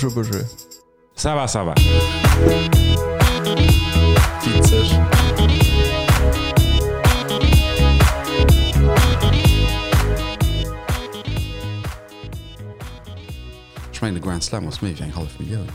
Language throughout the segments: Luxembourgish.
Bonjour, bonjour. Ça va, ça va. Witzeg. Ech mengen de Grand Slam ass méi wéi eng hallef Millioun.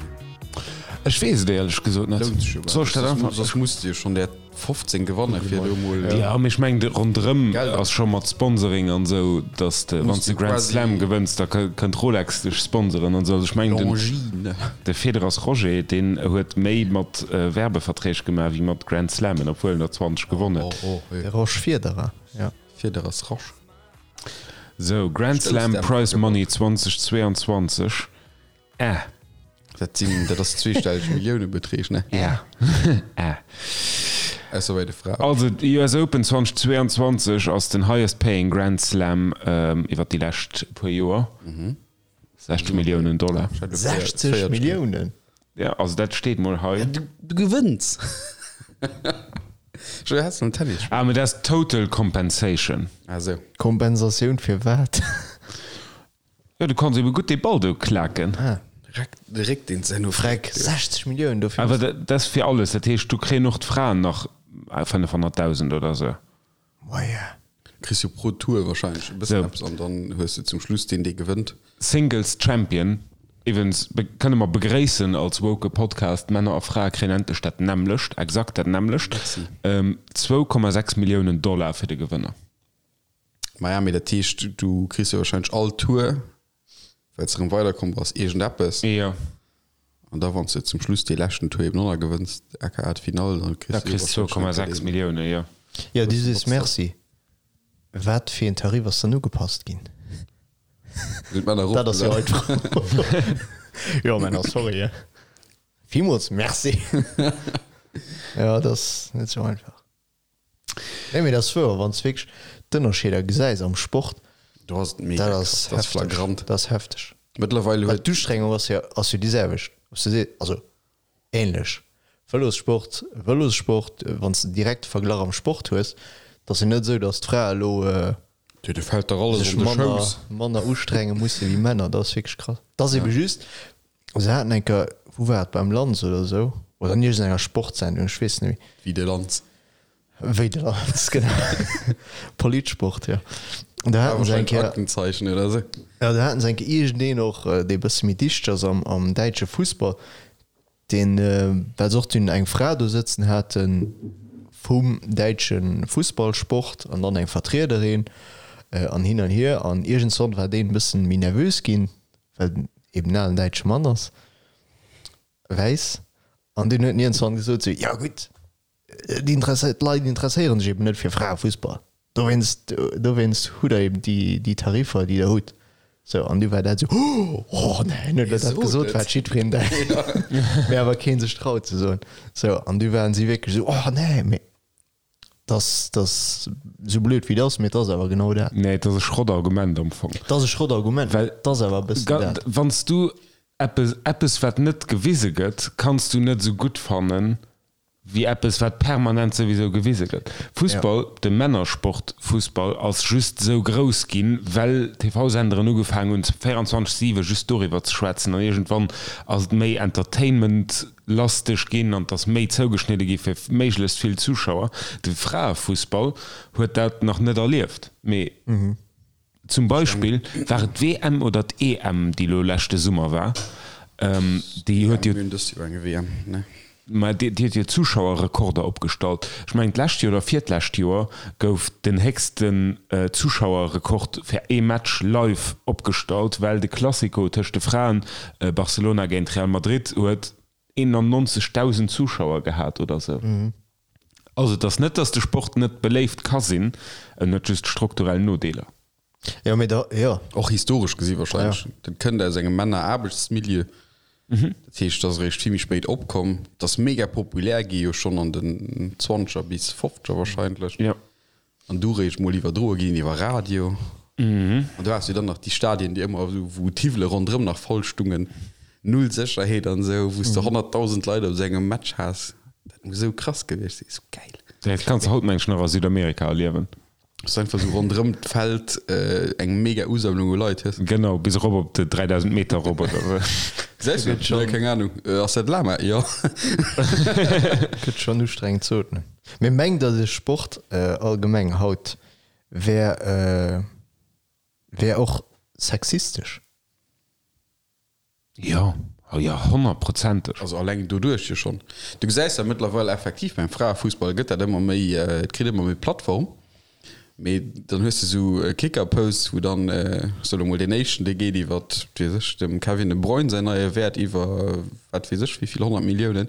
Ech weess et éierlech gesot net. Lount sech jo Soll ech dat einfach. Soss muss de jo schonn där 15 gewanne fir do mol. Jo, mee ech mengen de ronderëm Geld ass scho mat Sponsoring an esou, datt de wann s de Grand Slam gewënns, da kënnt Rolex dech sponsoren an esou. Also ech mengen den Longines. de Federers Roger, deen huet méi mat Werbeverträg gemaach wéi mat Grand Slammen, obwuel en der 20 gewonn huet. De Roger Federer, jo. Federers Roger. Sou, Grand Slam Prize Money 2022, Äh. Dat sinn, dat ass zweestelleg Milliounebeträg, ne? Ja. Äh. Ausser bei de Fraen. Also d'US Open 2022 ass den highest paying Grand Slam iwwer déi lescht puer Joer. 60 Milliounen Dollar. 60 Milliounen? Ja, also dat steet mol hei. Du gewënns! Joé, has de en Tennis Ah, mee dat ass total compensation. Ah sou. Kompensatioun fir wat? Jo, du kanns ebe gutt dee Ball do klaken. Ah. Reck, de Réck deen ze no Freck, 60 Milliounen dofir. Awer dat ass fir alles, dat heescht do kréien och d'Fraen nach 500.000 oder sou. Moia. Kriss jo pro Tour wahrscheinlech e bëssen eppes an dann hues de zum Schluss deen dee gewënnt. Singles Champion, iwwens kënne mer begréissen als woke Podcast, Männer a Frae kréien endlech dat nämmlecht, exakt dat nämmlecht, 2,6 Milliounen Dollar fir de Gewënner. Maja, mee dat heescht, du kriss jo wahrscheinlech all Tour, well s de erëm weiderkomm bass, iergendeppes. Jo. An da wann s de zum Schluss dee leschten Tour eben och nach gewënns, aka d'Finall, dann kriss du jo wahrscheinlech 2,6 Millioune, jo. Jo, du sees Merci. Wat fir een Tarif ass dann ugepasst ginn? Sinn d'Männer Dat ass jo eropgesat. hei d'Fro. Jo, Männer, sorry. Villmools Merci. Jo, dat ass net sou einfach. Nee, mee dat ass wouer, wann s de wierklech d'Ënnerscheeder gesäis am Sport, Do ass et mega dat krass, ass dat ass hefteg, flagrant. dat ass hefteg. Mëttlerweil Well huet. d'Ustrengung ass jo, ass jo déi selwecht, ob s de sees, also ähnlech. Vëlossport, Vëlossport, wann s de direkt de Verglach am Sport hues, et ass jo net esou, datt d'Frae elo Jo, do fält der alles sech an de manner, Schouss. manner ustrenge musse wéi Männer. Dat ass wierklech krass. Dat ass ebe just, se haten eng Kéier, wou war et, beim Lanz oder esou, oder an iergendenger Sportsendung, ech weess net méi. Wéi de Lanz. Wéi de Lanz, genau. Politsport, jo. An do haten se eng Kéier. Aktenzeichen oder esou. Jo, do haten se eng Kéier iergendeen och, dee e bësse méi dichteg ass am, am däitsche Fussball, Deen, well se och dunn eng Fra do sëtzen hate vum däitsche Fussballsport an dann eng Vertriederin an hin an hier. An iergendswann war deen e bëssen méi nervös ginn, well en eben en alen däitsche Mann ass, wäiss. An deen huet iergendswann gesot sou, jo gutt, d'Leit interesséiere sech eben net fir Fraefussball. Dowéinst, dowéinst hutt der eben déi, déi Tariffer, déi der hutt. Sou, an du war dat esou, Oh, oh nee, huet der dat gesot, wat jiddwereen denkt, mee awer kee sech traut ze soen. Sou, an du waren si wierklech esou, Oh nee, mee dass, dass, esou blöd wéi et ass, mee et ass awer genau dat. Nee, et ass e Schrottargument am Fong. Et ass e Schrottargument, Well et ass awer e bëssen dat. Wann s du eppes, eppes wat net gewise gëtt, kanns du net esou gutt fannen, wéi eppes wat permanent souwisou gewise gëtt. Fussball, de Männersport Fussball ass just esou grouss ginn, well TV-Senderen ugefaangen hunn 24, 7 just doriwwer ze schwätzen an iergendwann ass et méi Entertainment-lasteg ginn an et ass méi zougeschnidde gi fir méiglechst vill Zuschauer. De Fraefussball huet dat nach net erlieft, mee Zum Beispill, war et d'WM oder d'EM, déi elo leschte Summer war, déi huet jo, mä déi huet jo Zuschauerrekorder opgestallt. Ech mengen d'lescht Joer oder virtlescht Joer gouf den héchsten Zuschauerrekord fir ee Match live opgestallt, well de Classico tëscht de Fraen, Barcelona géint Real Madrid, huet 91.000 Zuschauer gehat oder sou. Also et ass net, datt de Sport net beléift ka sinn, en huet just strukturell Nodeeler. Jo, mee da, jo. Och historesch gesi wahrscheinlech. Dat kënnt aus engem Männer-Aarbechtsmilieu. Dat heescht, dat ass eréischt vill méi spéit opkomm. Dat ass mega populär gi jo schonn an den Zwanzeger bis Fofzeger wahrscheinlech. Jo. An du réischt mol iwwerdroe ginn iwwer Radio. An du has jo dann nach déi Stadien, déi ëmmer esou, wou d'Hiwwele ronderëm nach voll stungen, null Sécherheet an esou, wou s de 100.000 Leit op esou engem Match has. Dat muss esou krass gewiescht sinn, esou gäil. Dat kanns de haut mengen ech nach a Südamerika erliewen. Dass du einfach sou ronderëm d'Feld eng mega Usammlung u Leit hues. Genau, bis erop op de 3000 Meter erop oder sou. Gesäis du dat? Nee, keng Ahnung. Ass dat Lama? Jo. Gëtt schonn ustrengend ze ootmen. Mee mengt der de Sport allgemeng haut wär wär och sexistesch? Jo, oh jo, honnertprozenteg. Also alleng doduerch jo schonn. Du gesäis dat mëttlerweil effektiv beim Fraefussball gëtt dat ëmmer méi, et kritt ëmmer méi Plattform. Mee dann hues de sou Kicker-Posts, wou dann, ech soe lo mol deen éischten, dee geet iwwer, wat weess ech, dem Kevin De Bruyne säin neie Wäert iwwer wat weess ech wéi vill 100 Milliounen.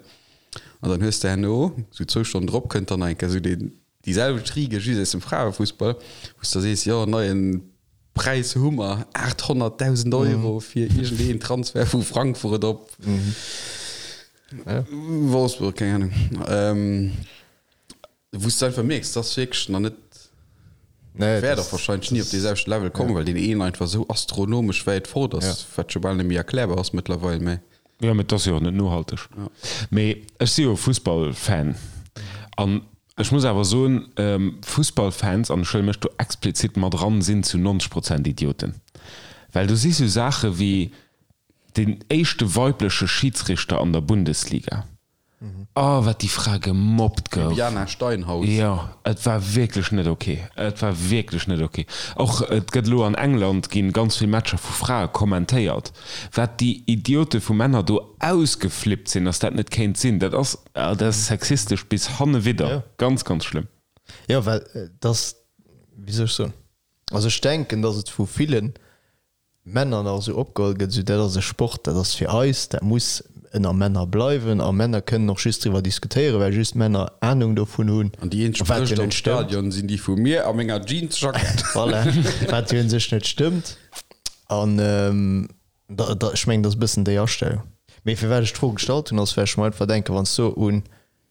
An dann hues de herno, sou zwou Stonnen drop, kënnt dann nach eng Kéier sou deen, déi selwecht Riege just aus dem Fraefussball, wou s de da sees, jo, neien Präis hu mer, 800.000 Euro fir iergendeen Transfer vu Frankfurt op Wolfsburg, keng Ahnung. Wou s de einfach mierks, dass wierklech nach net, wäert och wahrscheinlech ni op dee selwechte Level kommen, well deen een einfach esou astronomesch wäit fort ass, wat scho bal net méi erklärbar ass mëttlerweil. Mä. Jo, mä et ass jo och net nohalteg. Mee ech si jo Fussballfan an ech muss awer soen, Fussballfans, an ech huele mech do explizit mat eran, sinn zu 90 Prozent Idioten. Well do si sou Saache wéi deen éischte weibleche Schidsrichter an der Bundesliga. Oh, wat déi Fra gemobbt gouf. Bibiana Steinhaus. Jo, et war wierklech net ok. Et war wierklech net ok. Och et gëtt elo an England ginn ganz vill Matcher vu Frae kommentéiert. Wat déi Idiote vu Männer do ausgeflippt sinn, dass dat net kéint sinn, dat ass, dat ass sexistesch bis hannewidder. Ganz, ganz schlëmm. Jo, well et ass, wéi soll ech soen, also ech denken, dass et vu villen Männer nach esou opgeholl gëtt, esou dat ass e Sport, dat ass fir eis, dat muss ënner Männer bleiwen a Männer kënnen och just driwwer diskutéieren, well just Männer Anung dovun hunn, An déi eenzeg wat jo Brëscht am net stëmmt. Stadion sinn déi vu mir a menger Jeansjackett. Voilà, wat jo un sech net stëmmt. An da, da, ech mengen, dat ass e bëssen déi Astellung. Mee firwat ech d'Fro gestallt hunn, ass well ech mer einfach denken, wann s du un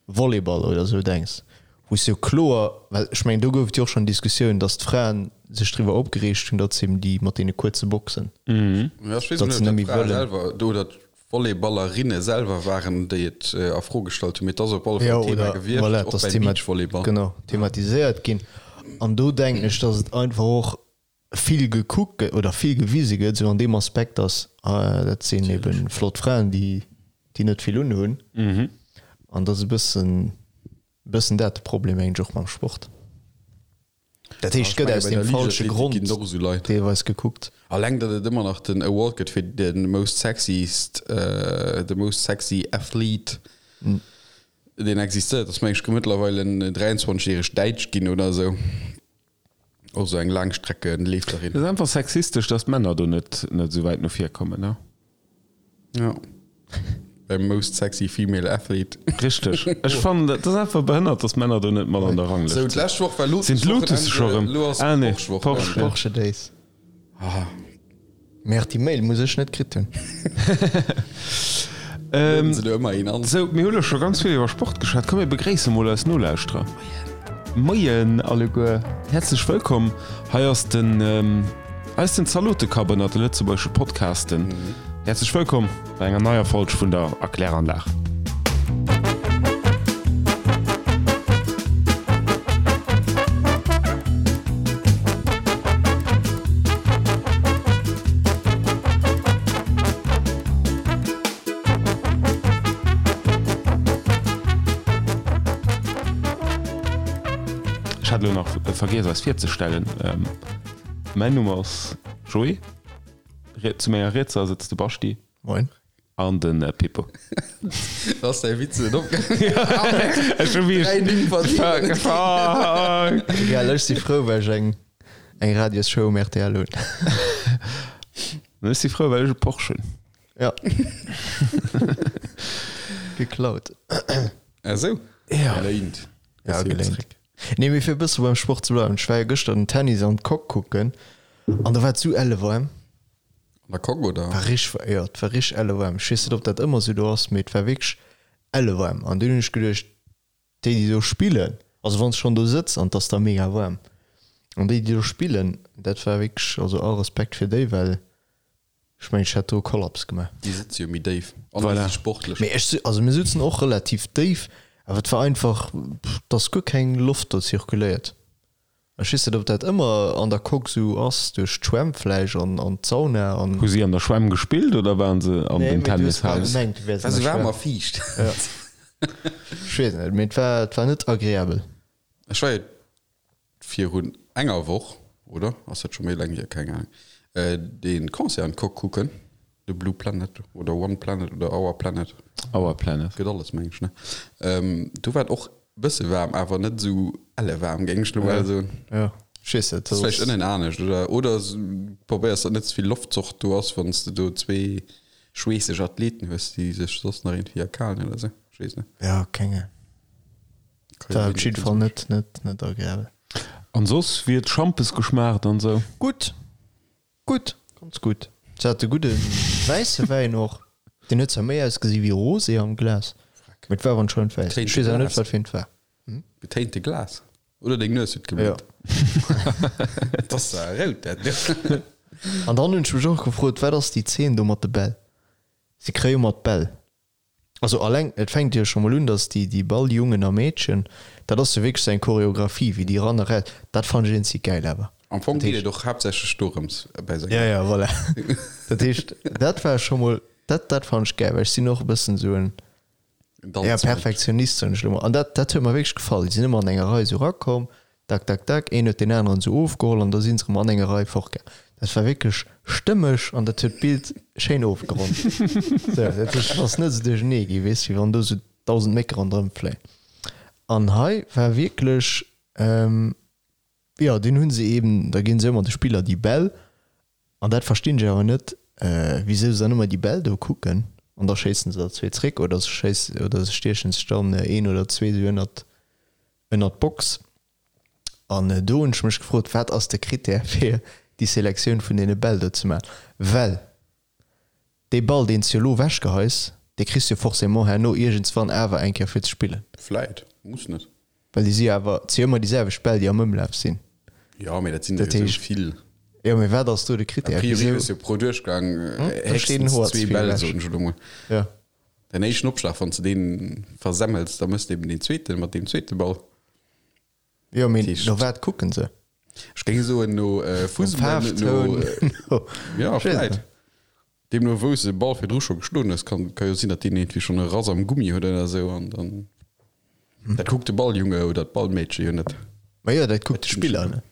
Volleyball oder esou denks, wou s jo kloer, well ech mengen do gouf et jo och schonn Diskussioun, datt d'Fraen sech driwwer opgereegt hunn, datt se eben déi mat deene kuerze Boxen, Ja, ech weess datt net, se ob net dat méi d'Frae wëllen. selwer oder d'Volleyballerinne selwer waren, déi et a Fro gestallt hunn, mee et ass op alle Fall Jo, Thema oder gewiescht, voilà, och et ass beim thema Beachvolleyball. genau, thematiséiert ginn. An do denken ech, datt et einfach och vill gekuckt gëtt oder vill gewise gëtt, esou an deem Aspekt, datt dat sinn ebe flott Fraen, déi déi net vill unhunn. An dat ass e bëssen bëssen dat de Problem mengen ech och mam Sport. Dat heescht, et gëtt aus deem falsche Grond deelweis gekuckt. Alleng datt et ëmmer nach den Award gëtt fir de most sexiest, the most sexy athlete, deen existéiert, ass meng ech mëttlerweil en 23 järeg Däitsch ginn oder esou. Och sou eng Laangstreckenleeferin. Et ass einfach sexistesch, dass d'Männer do net net esou wäit no vir kommen, ne? Ja. Beim Most Sexy Female Athlete. Richteg. Ech fannen, dat ass einfach behënnert, dass d'Männer do net mat an der Ranglëscht Sou, d'lescht Woch war sinn. Sinn d'Lotus scho rëm? Lo ass Ah nee, Porsche-Woch. Porsche. Porsche Days. Ah. Merde, déi Mail muss ech net kritt hunn. Lueden se do ëmmer een an. Sou, mir hu lo scho ganz vill iwwer Sport geschwat. Komm mir begréisse mol eis Nolauschterer. Moien alleguer, häerzlech wëllkomm. Hei ass den, hei ass den Zalotekapp ënnert de lëtzebuergesche Podcasten. Häerzlech wëllkomm bei enger neier Folg vun der Erkläranlag. Ech hat elo nach vergiess eis virzestellen. Mäin Numm ass Joé, zu menger Rietser sëtzt de Baschi. Moin. An de Pippo. Ass däi Witz net opgaangen? Ech hu wierklech. Dräi Nimm verdient. Fuck! Egal, ech si frou, well ech eng eng Radiosshow um rtl hunn. An ech si frou, well ech e Porsche hunn. Ja. Geklaut. Ah sou? Ja. Geléint. Ja, geléint. Nee, mee fir e bësse beim Sport ze bleiwen, ech war jo gëschter den Tennis an d'Coque kucken an do war et sou elle waarm. An der Coque, oder? War richteg, jo, et war richteg elle waarm. Ech weess net, ob dat ëmmer sou do ass, mee et war wierklech elle waarm. An dunn hunn ech geduecht, déi, déi do spillen, also wann s schonn do sëtz an et ass da mega waarm, an déi, déi do spillen, dat war wierklech, also all Respekt fir déi, well ech mengen, ech hätt do e Kollaps gemaach. Déi sëtze jo méi déif an Voilà. si sportlech. Mee ech, also mir sutzen och relativ déif, awer et war einfach, et ass guer keng Loft do zirkuléiert. Ech weess net, ob dat ëmmer an der Coque sou ass, duerch d'Schwämm vläicht an an d'Sauna an. Hu si an der Schwämm gespillt oder waren se an Nee, den mee du hues bal Tennishalen? gemengt, du wäers War an sou der waarm Schwämm. a fiicht. Ja. Ech weess net, mee et war, et war net agreabel. Ech war jo virun enger Woch, oder ass dat scho méi laang hier, keng Ahnung, dee Concert an d'Coque kucken, de Blue Planet oder One Planet oder Our Planet. Our Planet. Gëtt alles, meng ech, ne? Do war et och bësse waarm, awer net esou elle waarm, géing ech lo mol soen. Ja, ech weess net. Ass vläicht ënnen anescht, oder? Oder probéiers, datt net ze vill Loftzocht do ass, wann s de do zwee schweesseg Athleten hues, déi sech soss nach iergendwéi erkalen oder esou. Ech weess net. Ja, keng Ahnung. War op jidde Fall net, net, net agreabel. An soss, wéi huet d'Schampes geschmaacht an esou? Gutt, gutt, ganz gutt. Se hate gudde wäisse Wäin och. Deen huet zwar méi ausgesi wéi Rosé am Glas, mee et war awer anscheinend wäiss. Ech weess awer net, wat fir eent war. Getéinte Glas? Oder deng Nues huet geblutt? Et ass zwar rout, dat do. An dann hunn ech mech och gefrot, wat ass déi Zeen do mat de Bäll? Se kréie jo mat Bäll. Also alleng, et fänkt jo scho mol un, dass déi, déi Balljungen a Meedchen, dat ass jo wierklech sou eng Choreographie, wéi déi ran a raus, dat fannen ech eenzeg gäil awer. Am Fong geet et och haaptsächlech dorëms bäi senger. Ja, ja, voilà. Dat heescht, dat war scho mol, dat, dat fannen ech gäil, well ech sinn och e bëssen esou en, ja, Perfektionist, soen ech elo mol. An dat, dat huet mer wierklech gefall. Déi sinn ëmmer an enger Rei esou erakomm, Tak, tak, tak, een huet deen aneren esou ofgeholl an da si se erëm an enger Rei fortgaang. Dat war wierklech stëmmeg an dat huet d'Bild schéin ofgeronnt. Sou, dat heescht, et ass net esou duerchernee gi, weess, wéi wann do esou 1.000 Mécke ronderëm fléien. An hei war wierklech, jo, dunn hu se eeben, da ginn se ëmmer de Spiller déi Bäll an dat verstinn ech awer net, wisou se dann ëmmer déi Bäll do kucken an da schéissen se der zwee zréck oder se schéissen oder se stiechen sech dann een oder zwee esou ënnert ënnert d'Box. An do hunn ech mech gefrot, wat ass de Critère fir déi Selektioun vun deene Bäll do ze maachen? Well dee Ball, deen s de elo ewechgeheis, dee kriss de jo forcément herno iergendswann awer eng Kéier fir ze spillen. Vläit, muss net. Well déi si jo awer, et si jo ëmmer déi selwecht Bäll, déi am Ëmlaf sinn. Jo, mee dat sinn der jo esou vill. Jo, mee wat ass do de Critère? A priori hues de jo pro Duerchgang héchstens zwee Bäll, soen ech elo mol. Jo. Däin éischten Opschlag, wann s de dee versemmels, da méchs de eben deen zweeten mat deem zweete Ball. Jo, mee no wat kucken se? Ech géing soen no Fussball, no, jo, vläit. Deemno wou s de de Ball virdru scho geschloen hues, kann ka jo sinn, datt deen iergendwéi schonn e Rass am Gummi huet oder esou an dann, dat kuckt de Balljunge oder d'Ballmeedche jo net. Ma jo, dat kuckt de Spiller net.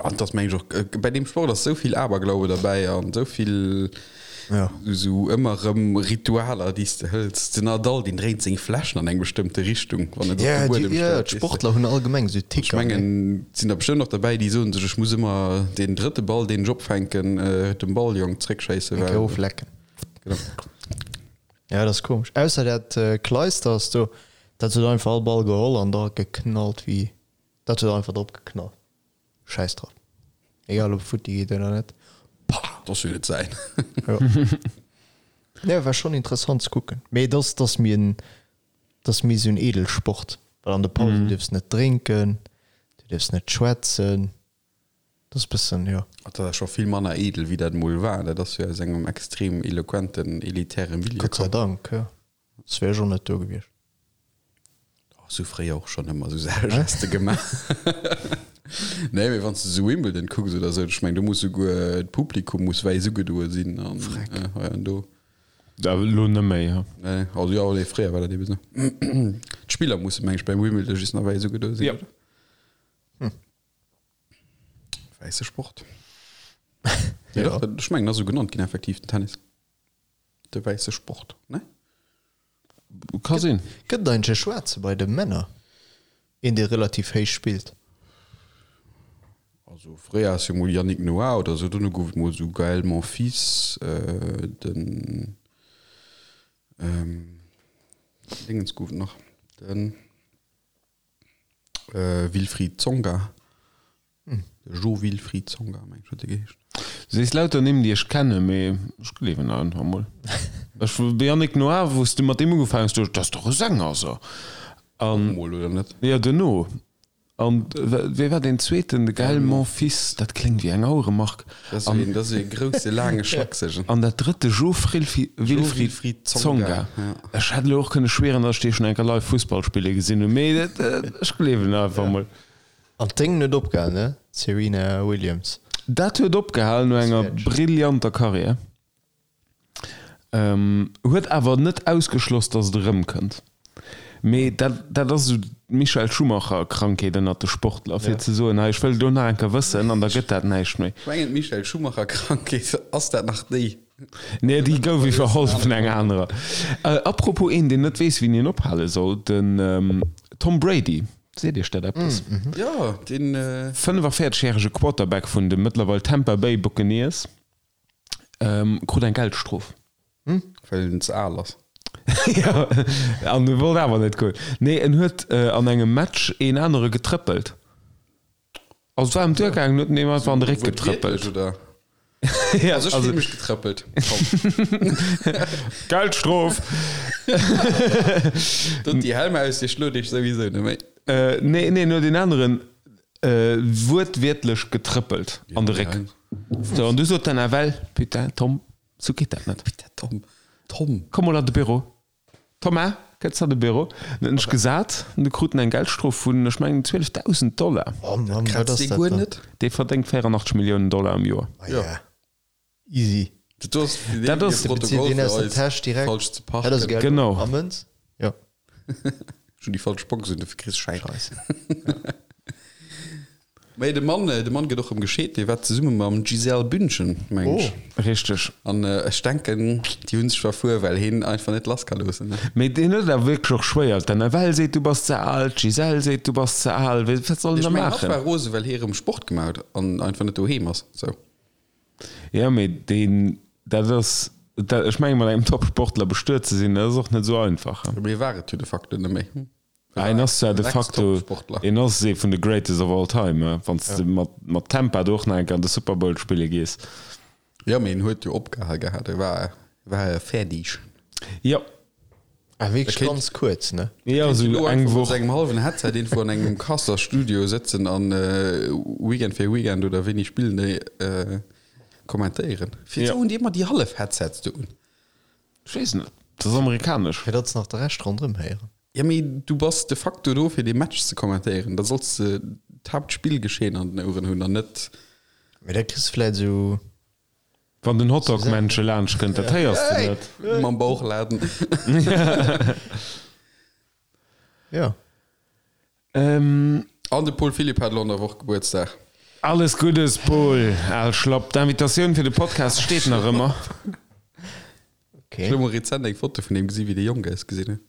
An et ass meng ech och, bei deem Sport ass esou vill Aberglaube derbäi an esou vill esou ëmmer erëm Ritualer, déi s de hëls. Den Nadal, deen dréint seng Fläschen an eng bestëmmte Richtung, wann en se op de Buedem stellt. Jo, d'Sportler hunn allgemeng esou Ticker. Ech mengen, et sinn der bestëmmt och derbäi, déi soen sech, ech muss ëmmer deen drëtte Ball, deen ech opfänken, dem Balljong zréckschéissen, well. Eng Kéier oflecken. Genau. Ja, dat ass komesch. Ausser dat Clijsters do, dat huet einfach all Ball geholl an da geknallt wéi, dat huet einfach drop geknallt. Schäiss drop. Egal ob futti geet oder net. Pah! Dat ass jo net säin. Jo. Nee, war schon interessant ze kucken. Mee et ass, et ass méi en, et ass méi esou en Edelsport, well an de Pausen dierfs net drénken, du dierfs net schwätzen. Dat ass bëssen, jo. Dat ass scho vill manner edel, wéi dat emol war. Dat ass jo aus engem extrem eloquenten, elitäre Milieu Gott sei komm. Dank, jo. Soss wär ech och net do gewiescht. Oh, sou fréier och schonn ëmmer sou Saache Geste gemaach. Nee, mee wann s de sou Wimbledon kucks oder sou, ech meng do muss souguer d'Publikum muss wäiss ugedoe sinn an hei an do. Da elo net méi, ha? Nee, also jo, nee, fréier war dat ebe sou. D'Spiller musse meng ech beim Wimbledon just nach wäiss ugedoe sinn, Ja. oder? Wäisse Sport. Jo, dach, ech mengen, ass sou genannt ginn effektiv, den Tennis. De wäisse Sport, ne? Ka sinn. Gëtt et eigentlech e Schwaarze bei de Männer? Een dee relativ héich spillt? Also fréier ass jo mol Yannick Noah oder sou, dono gouf et mol sou Gaël Monfils, den Dingens gouf et nach, den Wilfried Tsonga. De Jo-Wilfried Tsonga, meng ech, huet e geheescht. Du sees lauter Nimm, déi ech kennen, mee ech gleewen der einfach mol. Ech, de Yannick Noah, wou s de mat deem ugefaangen hues, duecht ech, dat ass dach e Sänger, so. An. Mol, oder net? Jo, duerno. An wee war deen zweeten? De Gaël Monfils, dat kléngt wéi eng Aueremark. Dat ass een, dat ass ee grousse, laange Schlaksegen. An dat drëtt, de Jo-Wilfried Tsonga. Ech hätt elo och kënne schwieren, datt ech dee schonn eng Kéier live Fussball spille gesinn hunn, mee dat, ech gleewen der einfach mol. An d'Déngen huet opgehal, ne? D'Serena Williams. Dat huet opgehal no enger brillanter Karriär. Huet awer net ausgeschloss, datt et erëmkënnt. Mee dat, dat ass esou d'Michael Schumacher-Krankheet ënnert de Sportler, fir ze soen, hei ech wëll et elo nach eng Kéier wëssen an da gëtt dat näischt méi. Ech mengen d'Michael Schumacher-Krankheet, ass dat nach déi? Nee, déi gouf iwwerholl vun enger anerer. Apropos een, deen net weess, wéini en ophale soll, den Tom Brady. Seet Iech dat eppes? Jo, deen. 45 järege Quarterback vun de mëttlerweil Tampa Bay Buccaneers krut eng Geldstrof. Well en ze al ass. Jo, an e wollt awer net goen. Nee, en huet an engem Match een anere getrëppelt. Also et war ëm d'Duer gaangen, huet en deem einfach an de Réck getrëppelt. Oder? Ja, Also ech also fillen mech getrëppelt. Komm. Geldstrof! Dot déi Helm aus, Dir schlot iech souwisou net méi. Nee, nee, en huet een aneren wuertwiertlech getrëppelt an de Réck. Sou, an du sot den FL, Putain, Tom, sou geet dat net. Putain, Tom, Tom. Komm mol an de Büro. Thomas, kënns an de Büro. Dann hunn ech gesat, an du krut en eng Geldstrof vun, ech mengen, 12.000 Dollar. Oh Mann, wat Kratzt ass dee dat guer dann? net? Dee verdéngt 84 Milliounen Dollar am Joer. Ah ja, easy. Dat ass fir Dat deen ass- hir De bezilt Protokoll deen fir aus der eis Täsch direkt. falsch ze Dat ass parken. Geld Genau. a Mënz? Jo. Ech hunn déi falsch Box un, dofir kriss Schäin. Scheisse. Mee de Mann, de Mann gëtt och erëm gescheet, dee war zesumme mam Gisèle Bündchen, meng ech. Oh. Richteg. An ech denken, déi hunn sech verfuer, well heen einfach net lass ka loossen. Mee deen huet et awer wierklech och schwéier. D'Annabelle seet, du bass ze al, d'Gisèle seet, du bass ze al. Wat soll en Ech da mengen, hatt maachen? war rose, well hee erëm Sport gemaach huet an einfach net doheem ass. Sou. Jo, mee deen, dat ass, dat, ech menge mat engem Top-Sportler bestuet ze sinn, dat ass och net esou einfach. Mee war et jo de facto net méi. Ah, en ass zwar de facto, en ass ee vun de greatest of all time, wann s de mat, mat Tampa do och nach eng Kéier an de Super Bowl spille gees. Jo, mee en huet jo opgehal gehat, e war, war fäerdeg. Jo. Ah, wierklech kéint- ganz kuerz, ne? Jo, Kéint esou elo eng einfach mat Woch. sengem hallwen Headset irgendwou an engem Kasser Studio sëtzen an Weekend fir Weekend oder wéini spillen déi kommentéieren. Firwat Jo. hunn déi ëmmer déi hallef Headsets do un? Ech weess net, dat ass amerikanesch. Fir datt se nach de Rescht ronderëm héieren. Jo, mee du bass de facto do fir dee Match ze kommentéieren. Da solls de d'Haaptspillgeschehen an den Oueren hunn an net. Mee da kriss de vläit esou. Wann den Hotdog-Männche laanscht kënnt, dat héiers de net. Mam Bauchladen. Jo. An de Paul Philipp hat elo an der Woch Gebuertsdag. Alles Guddes, Paul, al Schlapp. D'Invitatioun fir de Podcast steet nach ëmmer. Ech hu mol rezent eng Foto vun him gesi wéi dee jonk ausgesinn huet.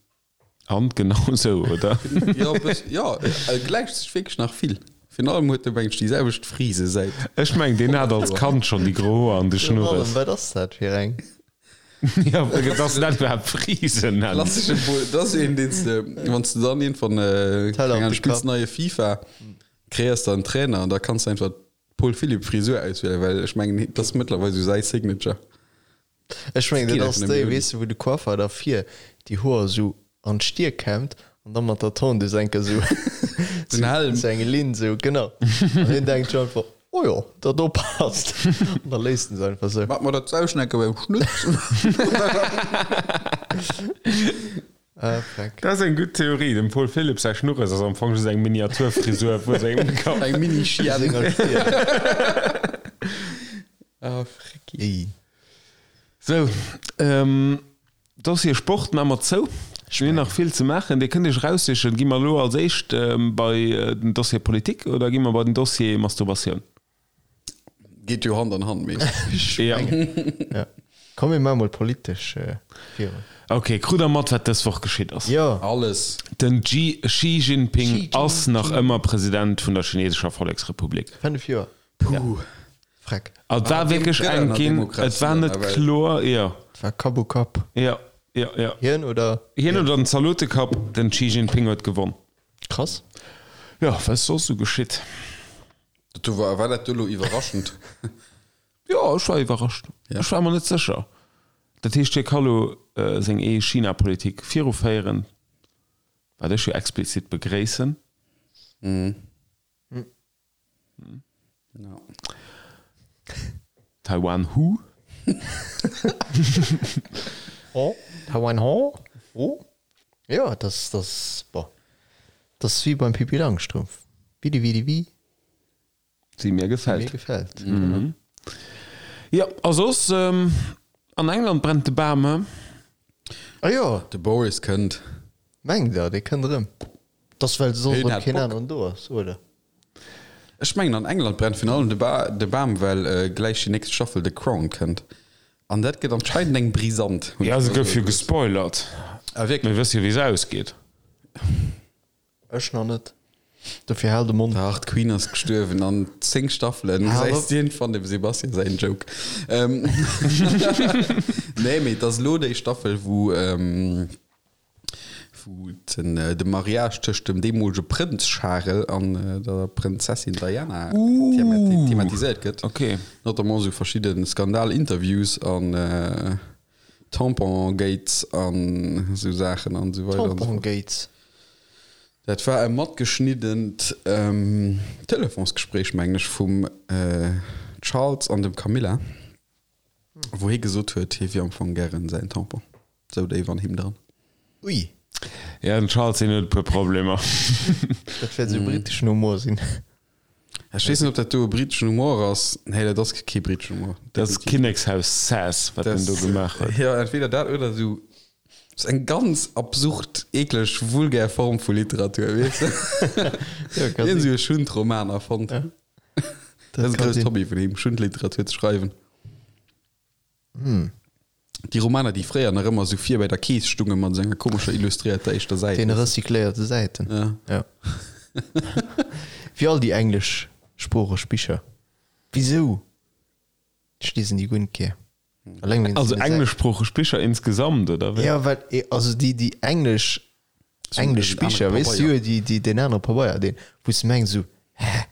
An genau sou, oder? Jo, e bëss, jo, e gläicht sech wierklech nach vill. Virun allem huet e mengen ech déi selwecht Frise säit. Ech mengen, deen hat als Kand schonn déi gro Hoer an de Virun allem, Schnurres. wat ass dat fir eng? Jo, dass en dat iwwerhaapt Frisen nennt. Klassesche Bull, dat ass een, deen s de, wann s de dann iergendwann, Teller keng op Ahnung, de spills Kapp. neie FIFA, kreéiers der en Trainer an da kanns de einfach d'Paul Philipp Frisur auswielen, well ech mengen, dat ass mëttlerweil esou säi Signature. Ech mengen Geet dat ass einfach déi, nëmme weess de, wou de Coiffer da vir déi Hoer esou an d'Stier kämmt an da mat der Tondeuse enker esou Den Helm. esou eng Linn esou, genau. An hien denkt scho einfach, oh jo, dat do passt. An da léisst en se einfach esou. Mat mer dat Sauschnecke beim Schnutz. Ah, freck. Dat ass eng gutt Theorie. Dem Paul Philipp säi Schnurres ass am Fong just eng Miniaturfrisur vu sengem Kapp. Eng Mini-Chienne. Senger Stier. Ah, frecki. Ey. Sou, Dossier Sport maache mer zou. Mir hunn nach vill ze maachen. Dir kënnt Iech eraussichen, gi mer elo als éischt bei den Dossier Politik oder gi mer bei den Dossier Masturbatioun? Geet jo Hand an Hand meeschtens. Ja. Ja. Komm mir maache mol politesch virun. Ok, krut der mat wat dës Woch geschitt ass? Jo. Alles. Den Xi Jinping Xi ass nach ëmmer President vun der chinesescher Volleksrepublik. 5 Joer. Puh. Freck. Et war wierklech enk ginn, et war net kloer, jo. Et war Kapp u Kapp. Jo, jo, jo. Hien oder? Hien oder den Zalotekapp, den Xi Jinping huet gewonn. Krass. Jo, wat ass soss esou geschitt? Dat do war, war dat do elo iwwerraschend? Jo, ech war iwwerrascht. Ja. Ech war mer net sécher. Dat heescht, hie ka lo seng ee China-Politik viruféieren, wat ech jo explizit begréissen. Ja. Taiwan who? Oh, Taiwan ho? Oh? Ja, das, das, boah. Das ist wie beim Pippi Langstrumpf. Widi widi wi. Sie mir gefällt. Mir gefällt. Mhm. Jo, a soss, an England brennt de Bam, he? Ah jo. De Boris kënnt. Mengt der, dee kënnt erëm? T'ass well soss erëm keen aneren do ass, oder? Ech mengen an England brennt virun allem de Bam, well gläich déi nächst Staffel The Crown kënnt. An dat gëtt anscheinend eng brisant. Jo, se gouf jo gespoilert. Ah wierklech? Mir wësse jo wéi se ausgeet. Ech nach net. Dofir hal de Mond. Dach, d'Queen ass gestuerwen an 10 Staffelen gesäis de iergendwann dem Sebastian säin Joke. Nee, mee et ass elo déi Staffel, wou wou den de Mariage tëscht dem deemolege Prënz Charel an der Prënzessin Diana thematiséiert gëtt. Okay. Notamment esou verschidde Skandal-Interviews an Tampon-Gates an esou Saachen an esou weider an esou fort. Tampon-Gates? Dat war e matgeschniddent Telefonsgespréich, mengen ech, vum Charles an dem Camilla, wou hie gesot huet, hie wier am Fong gären säin Tampon. Sou déif an him dran. Ui. Ja, den Charles, deen huet e puer Problemer. Dat wäert esou briteschen Humor sinn. Ech weess net, ob dat do e briteschen Humor ass. Nee, dat ass kee briteschen Humor. Dat ass Kinnekshaus-Sass, wat den do gemaach huet. Jo, entweder dat oder esou eng ganz absurd, eekleg, vulgär Form vu Literatur, weess de? Jo, ka Hien sinn. esou e Schundroman erfonnt. Ja. Dat ass e ka grousst sinn. Hobby vun him, Schundliteratur ze schreiwen. Déi Romaner, déi fréier nach ëmmer esou vir bei der Kees stungen mat esou enger komescher illustréierter éischter Säit. Deene recycléierte Säiten. Ja. Ja. Wéi all déi engleschsproocheg Bicher. Wisou? Ech liesen déi guer net gär. Alleng wéinst Also deene Säiten. engleschsproocheg Bicher insgesamt, oder wéi? Ja, well, also déi, déi englesch, englesch den anere Bicher, weess du, Pabeier. jo, déi, déi, deen anere Pabeier, deen, wou s de mengs esou, hä?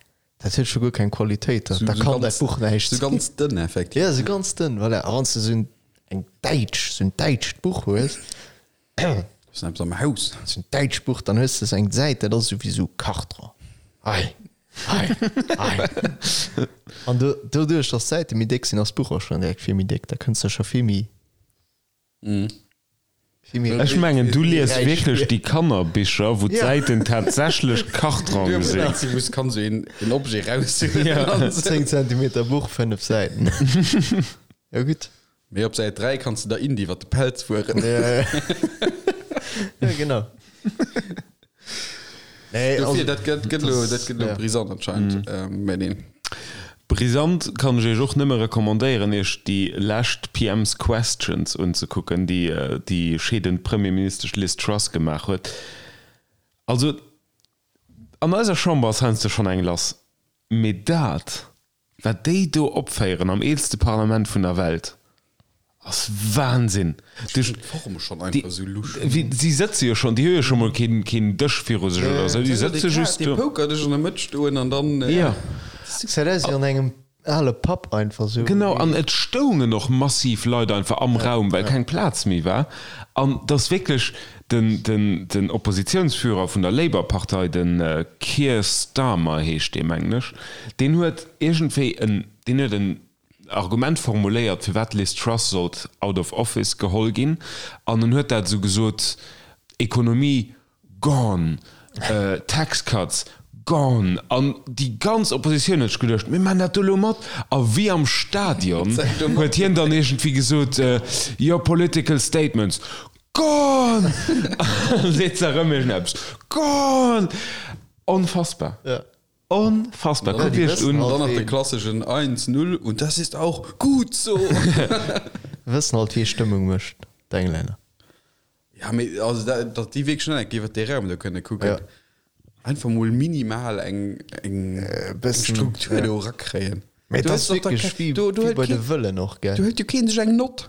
Dat huet scho guer keng Qualitéit, da So kann dat Buch näischt sou ganz dënn effektiv. Ja, sou ganz dënn, voilà. A wann s de sou eng däitsch, sou en däitscht Buch hues, Ass eppes am Haus. sou en däitscht Buch, dann hues de sou eng Säit, dat ass sou wéi sou Karton. Ei, ei, ei. An do, doduerch, datt d'Säite méi déck sinn, ass d'Buch och schonn direkt vill méi déck. Da kënns de scho vill méi. Ech mengen du lies wierklech déi Kannerbicher wou d'Säiten tatsächlech Kartrong sinn. Wou s kanns een Objet raushuelen. 10 Zentimeter Buch, 5 Säiten. Jo gutt. Mee op Säit 3 kanns de der Indy iwwer de Pelz fueren. Jo genau. Nee, Dofir, also, dat gëtt, gëtt lo, dat gëtt lo ja. brisant anscheinend. Mm. Mä neen. Brisant kann ech iech och nëmme recommandéieren, iech déi lescht PM's Questions unzekucken, déi déi scheedend Premierministesch Liz Truss gemaach huet. Also, an eiser Chamber ass heiansdo schonn eng lass, mee dat, Wat déi do opféieren am eelste Parlament vun der Welt ass Wahnsinn. Ech fannen d'Form schonn einfach esou lusch. Si sëtze jo schonn, déi hu jo scho mol keen keen Dësch viru sech oder esou, déi sëtze just do. Dee Pokerdësch an der Mëtt stoen an dann. Jo. Gesäit aus wéi an engem ale Pub einfach esou. Genau, an et stoungen och massiv Leit einfach am Raum, well keng Plaz méi war. An et ass wierklech den, den, den Oppositiounsführer vun der Labour-Partei, de Keir Starmer heescht dee, mengen ech, deen huet iergendwéi en, deen huet en Argument formuléiert, firwat d'Liz Truss sollt out of office geholl ginn. An en huet dat esou gesot, Ekonomie gone, Tax cuts gone. An déi ganz Oppositioun huet sech geduecht, mir maachen dat do elo mat. A wéi am Stadion huet hien dann iergendwéi gesot, Your political statements Gone! An seet se erëm iergendeppes. Gone! Onfassbar. Ja. Onfassbar. Kuckt die iech wëssen un. halt Dann nach de ween. klasseschen eins, null und das ist auch gut so. Wëssen halt wee Stëmmung mécht, d'Englänner. Ja, mee also dat, datt déi wierklech net eng iwwer dee Raum do kënne kucken. Ja. Einfach mol minimal eng, eng, eng bëssen, Struktur ja. do erakréien. Mee Du dat hues ass doch da wierklech ke- wéi, do, do wéi huet bei de keen, Wëllen och, gell? do huet jo keen sech eng Nott.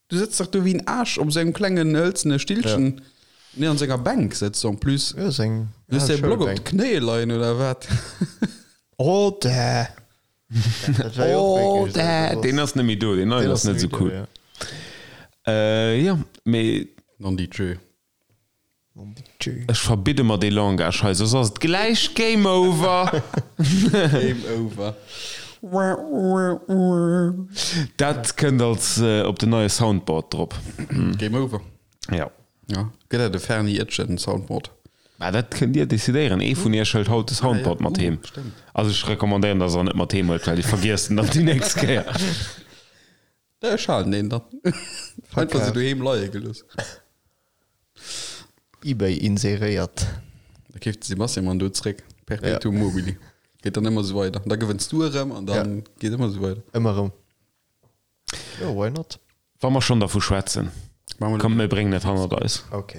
Du sëtz dach do wéi en Aarsch op esou engem klengen hëlzene Stillchen. Ja. Nee, an senger Bänk sëtzt en plus. Ja, seng Du hues däi Block op d'Knéie leien oder wat? Oh, dä! Dat war jo och Oh, wierklech dä! Deen ass net méi do, deen neien ass net esou cool. Ja. Äh, jo, mee. Non di Dieu. Ech verbidde mer dee Langage hei, soss ass et gläich Game Over. Game Over. Dat kënnt als op den neie Soundboard drop. Game Over. Ja. Ja, gëtt dat e Ferni Etchen Soundboard? Mä dat kënnt Dir decidéieren. Ee vun Iech hëlt haut de Soundboard mat heem. Also ech recommandéieren, dass Der en net mat heem huelt, well Dir vergiesst en dann déi nächst Kéier. Ech halen deen dann. Einfach sou doheem leie gelooss. Ebay inseréiert. Da keeft de Sebastian man do zréck. Perpetuum mobile. Geet dann ëmmer sou weider. Da gewënns du erëm an dann geet ëmmer sou weider. Ëmmer erëm. Jo, why not? Wa mer schonn dervu schwätzen, kommt mir bréngen et hannert eis. Ok.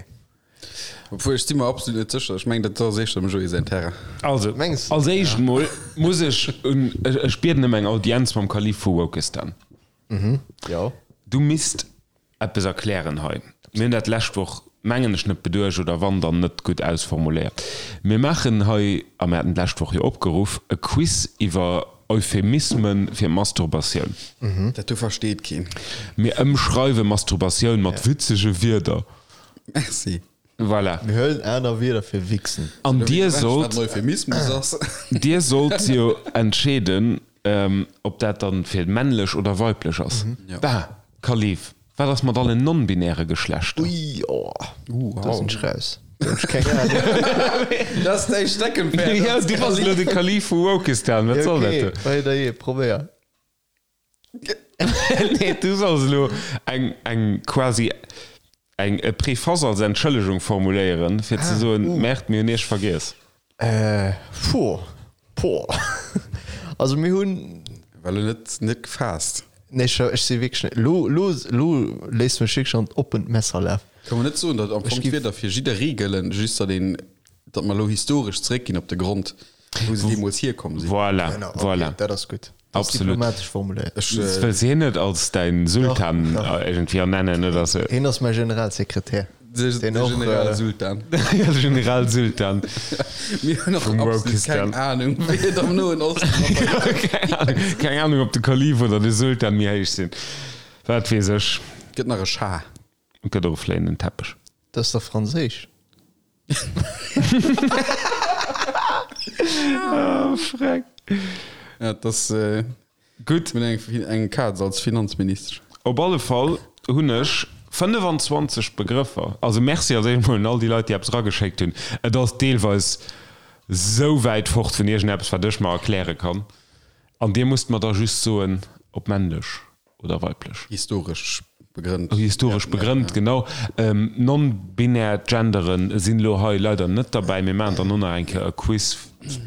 Obwuel, ech si mer absolut net sécher. Ech mengen, dat ass éischter dem Joé säin Terrain. Also, Mengs als éischt mol muss ech un, ech bieden ëm eng Audienz mam Kalif vu Wokistan. Jo. Du misst eppes erklären hei. Mir hunn dat d'lescht Woch, mengen ech, net beduecht oder wann, dann net gutt ausformuléiert. Mir maachen hei, a mir haten d'lescht Woch jo opgeruff, e Quiz iwwer Euphemisme fir Masturbatioun. Dat do versteet keen. Mir ëmschreiwe Masturbatioun mat witzege Wierder. Merci. Voilà. Mir huelen aner Wierder fir wichsen. An dir sollt. Wat en Euphemismus ass. Dir sollt jo entscheeden, ob dat dann fir männlech oder weiblech ass. Bah, Kalif, wat ass mat allen non-binäre Geschlechter? Ui, oh, do sinn ech raus. Do hunn ech keng Ahnung. Dat ass däi Steckenpferd. Jo, du bass elo de Kalif vu Wokistan, wat soll dat do? Okay, hei, da jee, probéier. Nee, du solls elo eng, eng quasi eng e Préface als Entschëllegung formuléieren, fir ze soen, Merde, mir hunn Iech vergiess. Äh, puh, puh. Also mir hunn. War elo net, net gefaasst. Nee, ech, ech si wierklech net. Lo, lo, lo léisst mech wierklech an d'oppent Messer lafen. Ka mer net soen, datt am Fong d'Wierder fir jidderee gëllen, just datt een, datt mer elo historesch zeréckginn op de Grond, wou se deemools hierkomm sinn. Voilà, Genau, okay, voilà. dat ass gutt. Dat ass Absolut. diplomatesch formuléiert. Ech, Wëlls de hien net als däin Sultan Dach, dach. iergendwéi ernennen oder sou? Hien ass mäi Generalsekretär. de, Deen de och, äh, Generalsultan. Ja, de Generalsultan Mir hunn och vum absolut Wokistan. keng Anung, wéi et am Noen Osten mat der Keng Ahnung, keng Ahnung, ob de Kalif oder de Sultan méi héich sinn. Wat weess ech. Gëtt nach e Schah. Et gëtt och e fléienden Teppech. Dat ass dach franséisch. Oh, freck. Ja, et ass Gutt. Mir hunn eng, eng Kaz als Finanzministesch. Op alle Fall hunn ech 25 Begrëffer. Also Merci als éischt mol un all déi Leit, déi eppes erageschéckt hunn. Et ass deelweis sou wäit fort vun iergendeppes, wat ech mer erkläre kann. An dir musst mer da just soen, ob männlech oder weiblech. Historesch begrënnt. Historesch begrënnt, genau. Non-binär Genderen sinn elo hei leider net derbäi. Mir maachen dann och nach eng Kéier e Quiz,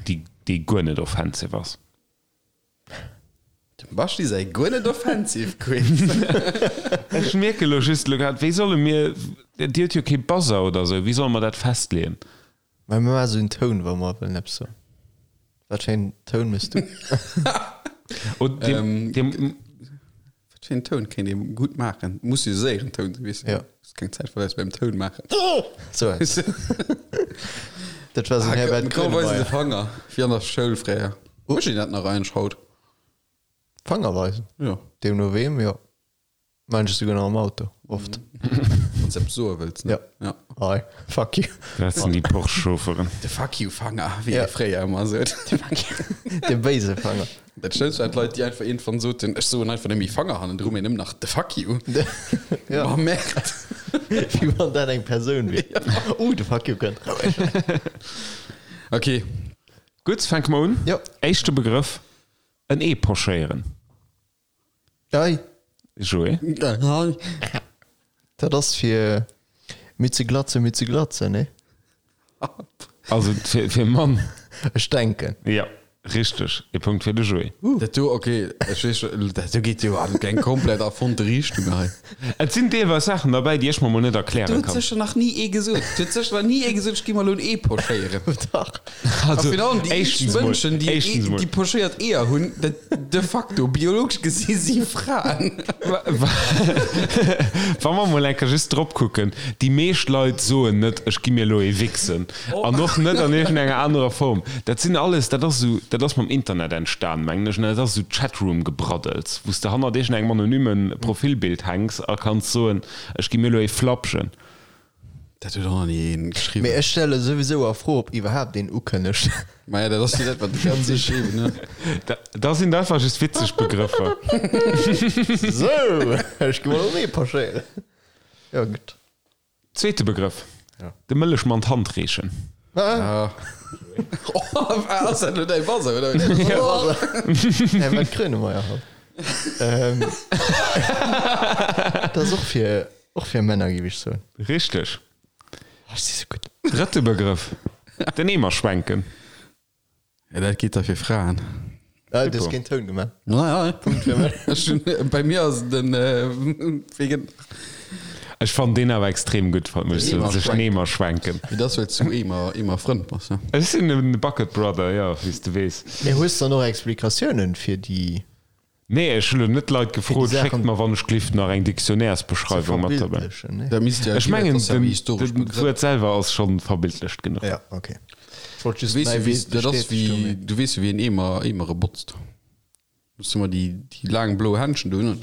dee guer net offensive ass. Dem Baschi säi guer net offensive Quiz. Ech mierke elo just elo grad, wéi solle mir, Dir hutt jo kee Buzzer oder esou, wéi solle mer dat festleeën? Mä mir maache sou en Toun, wa mer wëllen eppes soen. Wat fir een Toun méchs du? Oh, deem, deem, Wat fir een Toun kéint ee gutt maachen? Muss jo séieren Toun sinn, weess de. Ja. Hues keng Zäit verléiers beim Toun maachen. Sou eppes. Dat war sou en Herbert Komm, weis de Grönemeyer. Fanger, wéi an der Schoul fréier. Mécht een dat nach eigentlech haut? Fanger weisen? Jo. Deemno weem, jo. Maan ech souguer nach am Auto, oft. Wann s de eppes soe wëlls, ne? Ja. Ja. Hi, fuck you. Dat sinn déi Porsche-Chaufferen. De Fuck you Fanger, wéi Ja. ee fréier ëmmer sot. De béise Fanger. Dat Schlëmmst waren d'Leit, déi einfach iergendwann soten, ech soen einfach net méi Fanger hannendru, mee nëmmen nach de Fuck you. Ja. Ma Merde. Wéi wann dat eng Persoun wier. Uh, de Fuck you kënnt. Ok. Gutt, fänke mer un. Jo. Éischte Begrëff, en Ee pochéieren. Ei. Joé. Dat ass fir méi ze glatzen, méi ze glatzen, nee? Also fir, fir Mann. Ech denken. Ja, richteg. E Punkt fir de Joé. Dat do, ok, ech weess scho, dat do geet jo an eng komplett erfonnte Richtung hei. Et sinn deelweis Saachen derbäi, déi ech mer mol net erkläre Do huet kann. sécher nach ni ee gesot, do huet sécher nach ni ee gesot, ech gi mer elo en Ee pochéieren. Dach. Also, A virun allem déi éischtens mol, Mënschen, déi, éischtens mol. déi pochéiert Eeër hunn, dat de facto biologesch gesi si Fraen. Wa mer mol eng Kéier just drop kucken, déi meescht Leit soen net, ech gi mir elo ee wichsen. An och net an iergendenger anerer Form. Dat sinn alles, dat ass esou, dat ass mam Internet entstan, mengen ech, an dat ass esou Chatroom-Gebraddels, wou s de hannert iergendengem anonyme Profilbild hänks a kanns soen, ech gi mir elo ee flapschen. Dat huet och nach ni een geschriwwen. Mee ech stelle souwisou a Fro, ob iwwerhaapt een ukënnegt. Maja, dat ass jo dat, wat déi ganz Zäit schreiwen, ne? Da, da sinn dat einfach just witzeg Begrëffer. Sou, ech gi mol erëm ee pochéieren. Jo, gutt. Zweete Begrëff, Ja. De Mëllechmann d'Hand reechen. Ah. Ass dat elo däi Buzzer, oder wéi? Nee, mä d'Grönemeyer halt. Ähm, dat ass och fir, och fir Männer, géif ech soen. Richteg. Oh, ech si sou gutt. Drëtte Begrëff, Den Eemer schwenken. Ja, dat geet da fir Fraen. Ah, du hues keen Toun gemaach. Ja, ja. Punkt fir mech. Ech hunn, bei mir ass den, wéi gëtt. Ech fannen deen awer extrem gutt, muss ech soen, sech den Eemer schwenken. Mee dat ass, well s du Eemer, Eemer-Frënd bass, ne? Ech sinn e Bucket Brother, jo, wéi s de weess. Mee hues de dann och Explikatiounen fir déi. Nee, ech hu lo net d'Leit gefrot, schéckt mer wann ech glift nach eng Dictionnairesbeschreiwung mat dobäi. Ech mengen, den Wuert selwer ass scho verbildlecht genuch. Ja, okay. Dat ass wéi, du weess jo wéi een Eemer, Eemere botzt. Muss du mer déi, déi laang blo Händschen do hunn,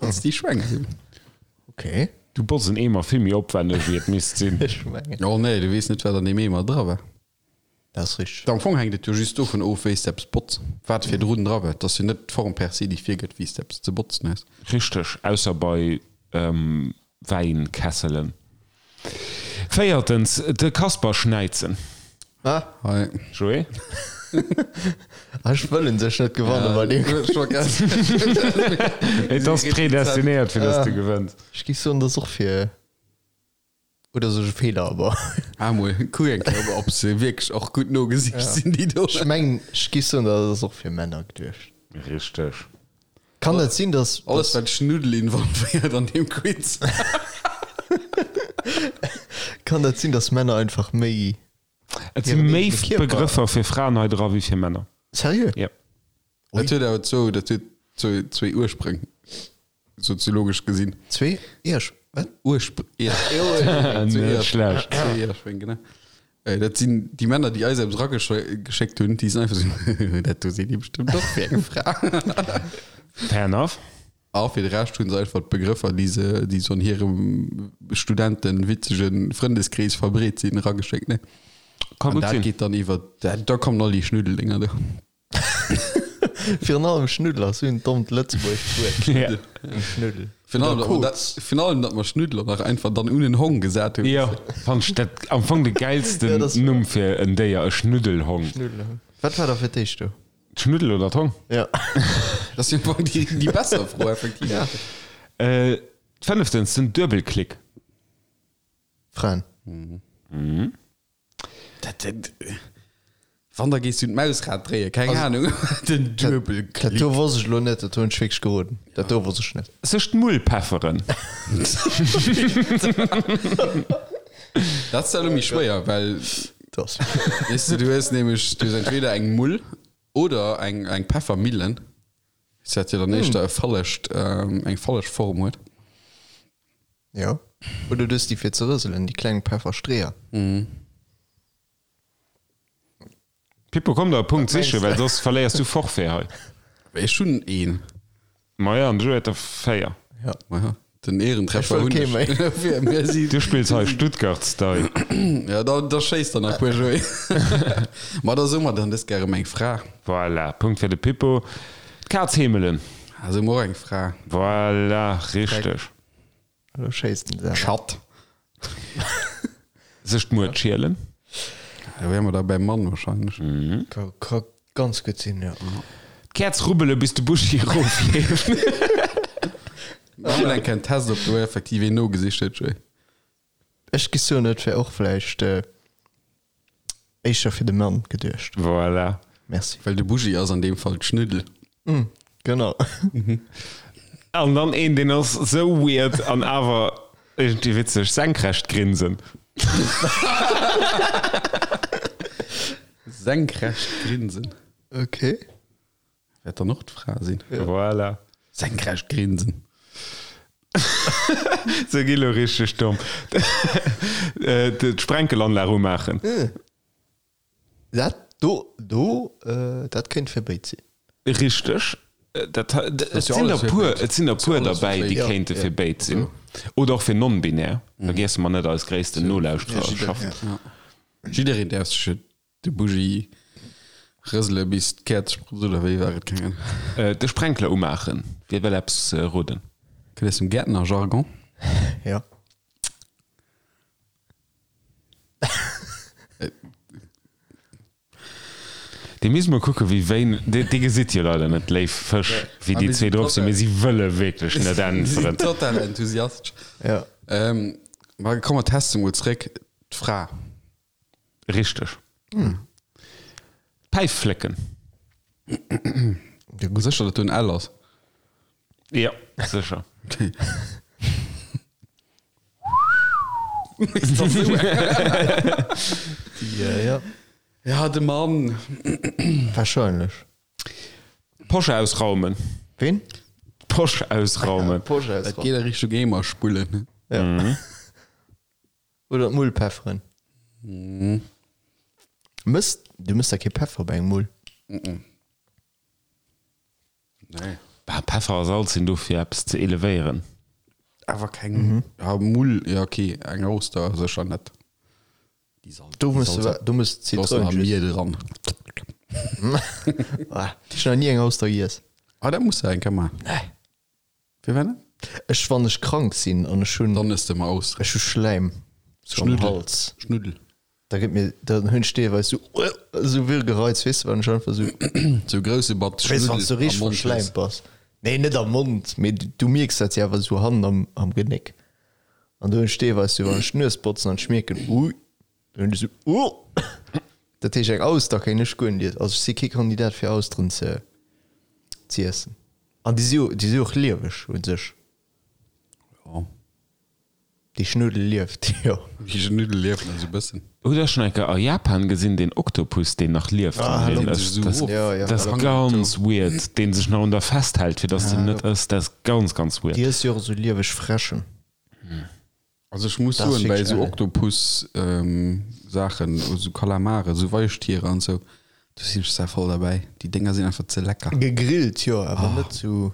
wann s déi schwenks. Okay. Du botz en Eemer vill méi opwänneg wéi et misst sinn. Ech mengen. Oh nee, du weess net wat an deem Eemer dra war. Dat ass richteg. Am Fong hänkt et jo just dovun of, wéi s de eppes botz, wat virdrun dra war. Et ass jo net d'Form per se, déi virgëtt, wéi s de eppes ze botzen hues. Richteg, ausser bei Wäinkesselen. Véiertens, de Kasper schnäizen. Ah. Hei. Joé? Ah, ech wëll un sech net gewannen bei deem. Et ass predestinéiert, fir dass du gewënns. Ech géif soen, dat ass och fir. Oder sech e Feeler awer. Ah mol, kuck eng Kéier op se wierklech och gutt nogesicht sinn déi do. Ech mengen, ech géif soen, dat ass och fir Männer geduecht. Richteg. Kann et sinn, dass. Alles wat Schnuddel involvéiert an deem Quiz. Kann dat sinn, dass Männer einfach méi. Et si méi Begrëffer fir Fraen hei dra wéi fir Männer. Seriö? Jo. Dat huet awer zwou, dat huet zwou, zwéi Urspréng, soziologesch gesinn. Zwee Iersch, wat? Urspr, Ier, Net schlecht. Zwéi Ierspréng, genau. Dat sinn déi Männer, déi eis eppes erageschéckt hunn, déi sinn einfach esou, dat do seet ee bestëmmt och fir eng Fra. Fair enough. A fir de Rescht hunn se einfach d'Begrëffer, déi se, déi sou an hirem Studenten witzege Frëndeskrees verbreet sinn, erageschéckt, ne? Ka An gutt dat sinn. geet dann iwwer, da kommen all déi Schnuddeldénger do. Virun allem Schnuddel ass sou en dommt lëtzebuergescht Wuert. Ja. Schnuddel. Virun allem, datt mer dat, virun allem, datt mer Schnuddler nach einfach dann un en Hong gesat hunn. Jo, fannt ech dat am Fong de gäilsten Ja, dat ass Numm fir en Déier, e Schnuddelhong. Schnuddelhong. Wat war da fir d'éischt do? D'Schnuddel oder d'Hong? Ja. Dat ass jo am Fong déi, déi besser Fro, effektiv. Ja. Äh, fënneftens, den Duebelklick. Fraen. Dat, dat, wann, da gees du d'Mausrad dréien, keng Ahnung. Den Duebelklick. Dat do wosst ech elo net, dat hunn ech wierklech geroden. Dat do wosst ech net. Sech d'Mull pefferen. Dat ass da elo méi schwéier, well, Das. weess de, du hues nämlech, du hues entweder eng Mull oder eng, eng Peffermillen, wat jo dann éischter e fallegt, eng falleg Form huet. Jo. Oder du hues déi fir ze rëselen, déi kleng Pefferstreeër. Pippo, komm der e Punkt sichen, well soss verléiers du Forfait hei. Ech hunn een. Maja, an de Joe huet der 4. Ja. Maja, den Ehrentreffer Ech wëll hunn kee méi. ech. Mir si. Du spills hei Stuttgart-Style. Ja, da, da schéiss der nach e puer, Joé. Ma da soe mer dann dës Kéier erëm eng Fra. Voilà, Punkt fir de Pippo. D'Kaz heemelen. Ah, soe mer och eng Fra. Voilà, richteg. Elo schéisst en selwer. Schatt. Sech d'Muert schielen. Da wäre mer da beim Mann wahrscheinlech. Ka, ka ganz gutt sinn, jo. D'Käerz rubbele bis de Buschi erofleeft. Mach mol eng Kéier en Test, ob do effektiv een nogesicht huet, Joé. Ech gi soen, et wär och vläicht éischter fir de Mann geduecht. Voilà. Merci. Well de Bougie ass an deem Fall d'Schnuddel. Genau. An dann een, deen ass sou weird an awer iergendwéi witzeg, senkrecht grinsen. Senkrecht grinsen. Okay. Wäert dann och d'Fra sinn. Voilà. Senkrecht grinsen. Se gi lo richteg domm. D'Sprenkelanlag umaachen. Dat do, do, dat kéint fir béid sinn. Richteg. Dat, et sinn der puer, et sinn der puer derbäi, déi kéinte fir béid sinn. Oder och fir non-binär. Vergiesse mer net eis gréissten Nolauschtererschaft. Jiddereen däerf sech et De Bougie rësele bis d'Käerz sprutzt, oder wéi war et? Keng Ahnung. De Sprenkler umaachen. Wie wëll eppes roden? Kënnt aus dem Gäertnerjargon. Jo. Dir misst mol kucken, wéi wéin, Dir gesitt jo leider net, léif Fësch, wéi déi zwee drop sinn, mee si wëlle wierklech net äntweren. Total enthusiastesch. Ja. Ma komm, mer teste mol zréck d'Fra. Richteg. D'Päif flécken. Sécher, datt do en L ass? Jo, sécher. Okay. Ja. Ja, de Mann. Wahrscheinlech. D'Posch ausraumen. Ween? D'Posch ausraumen. D'Posch Dat ausraumen. geet a Richtung Eemer spullen. Ja. Oder d'Mull pefferen. Mëss, du mëss da kee Peffer bei eng Mull? Nee. Bah, Peffer a Salz sinn do fir eppes ze elevéieren. Awer keng, ja, Mull, ja okay, eng Auster sécher net. Déi Salz, Do muss du, do muss Do ass nach Zitroun. Miel dran. Ah, ech hunn nach ni eng Auster giess. Ah, dat muss de eng Kéier maachen. Nee. Firwat net? Ech, wann ech krank sinn an ech hunn, Dann ëss de emmer Austeren. ech hu Schläim sou am Schnuddel. Hals. Schnuddel. Da gëtt mir, dann hunn ech deelweis sou, sou Würgereiz, weess de, wann ech einfach sou, Sou grousse Batz weess de, wann s du Schnuddel am richteg Mond hues. verschläimt bass. Nee, net am Mond, mee du mierks dat jo awer sou hannen am, am Genéck. An do hunn ech deelweis sou, wann ech d'Nues botzen an ech mierken, ui, dann hunn ech sou, uh. Dat heescht, eng Auster kéint ech guer net iessen. Also ech si kee Kandidat fir Austeren ze, ze iessen. An déi si jo, déi si jo och lieweg u sech. Jo. Déi Schnuddel lieft, jo. Déi Schnuddel lieft nach esou bëssen. Hutt der schonn eng Kéier a Japan gesinn, deen Oktopus, deen nach lieft? Ah, Deen deen ass, sech esou dat ass, of. Ja, ja. dat ass ganz weird, deen sech nach un der festhält, fir dass den net ësst. Dat ass ganz, ganz weird. Déi ësst jo och esou lieweg Fräschen. Also ech muss Dat ass soen, bei wierklech esou ellen. Oktopus-Saachen, esou Kalamare, esou Weichtiere an esou, do sinn ech sehr voll derbäi. Déi Dénger sinn einfach ze lecker. Gegrillt, jo, awer net esou.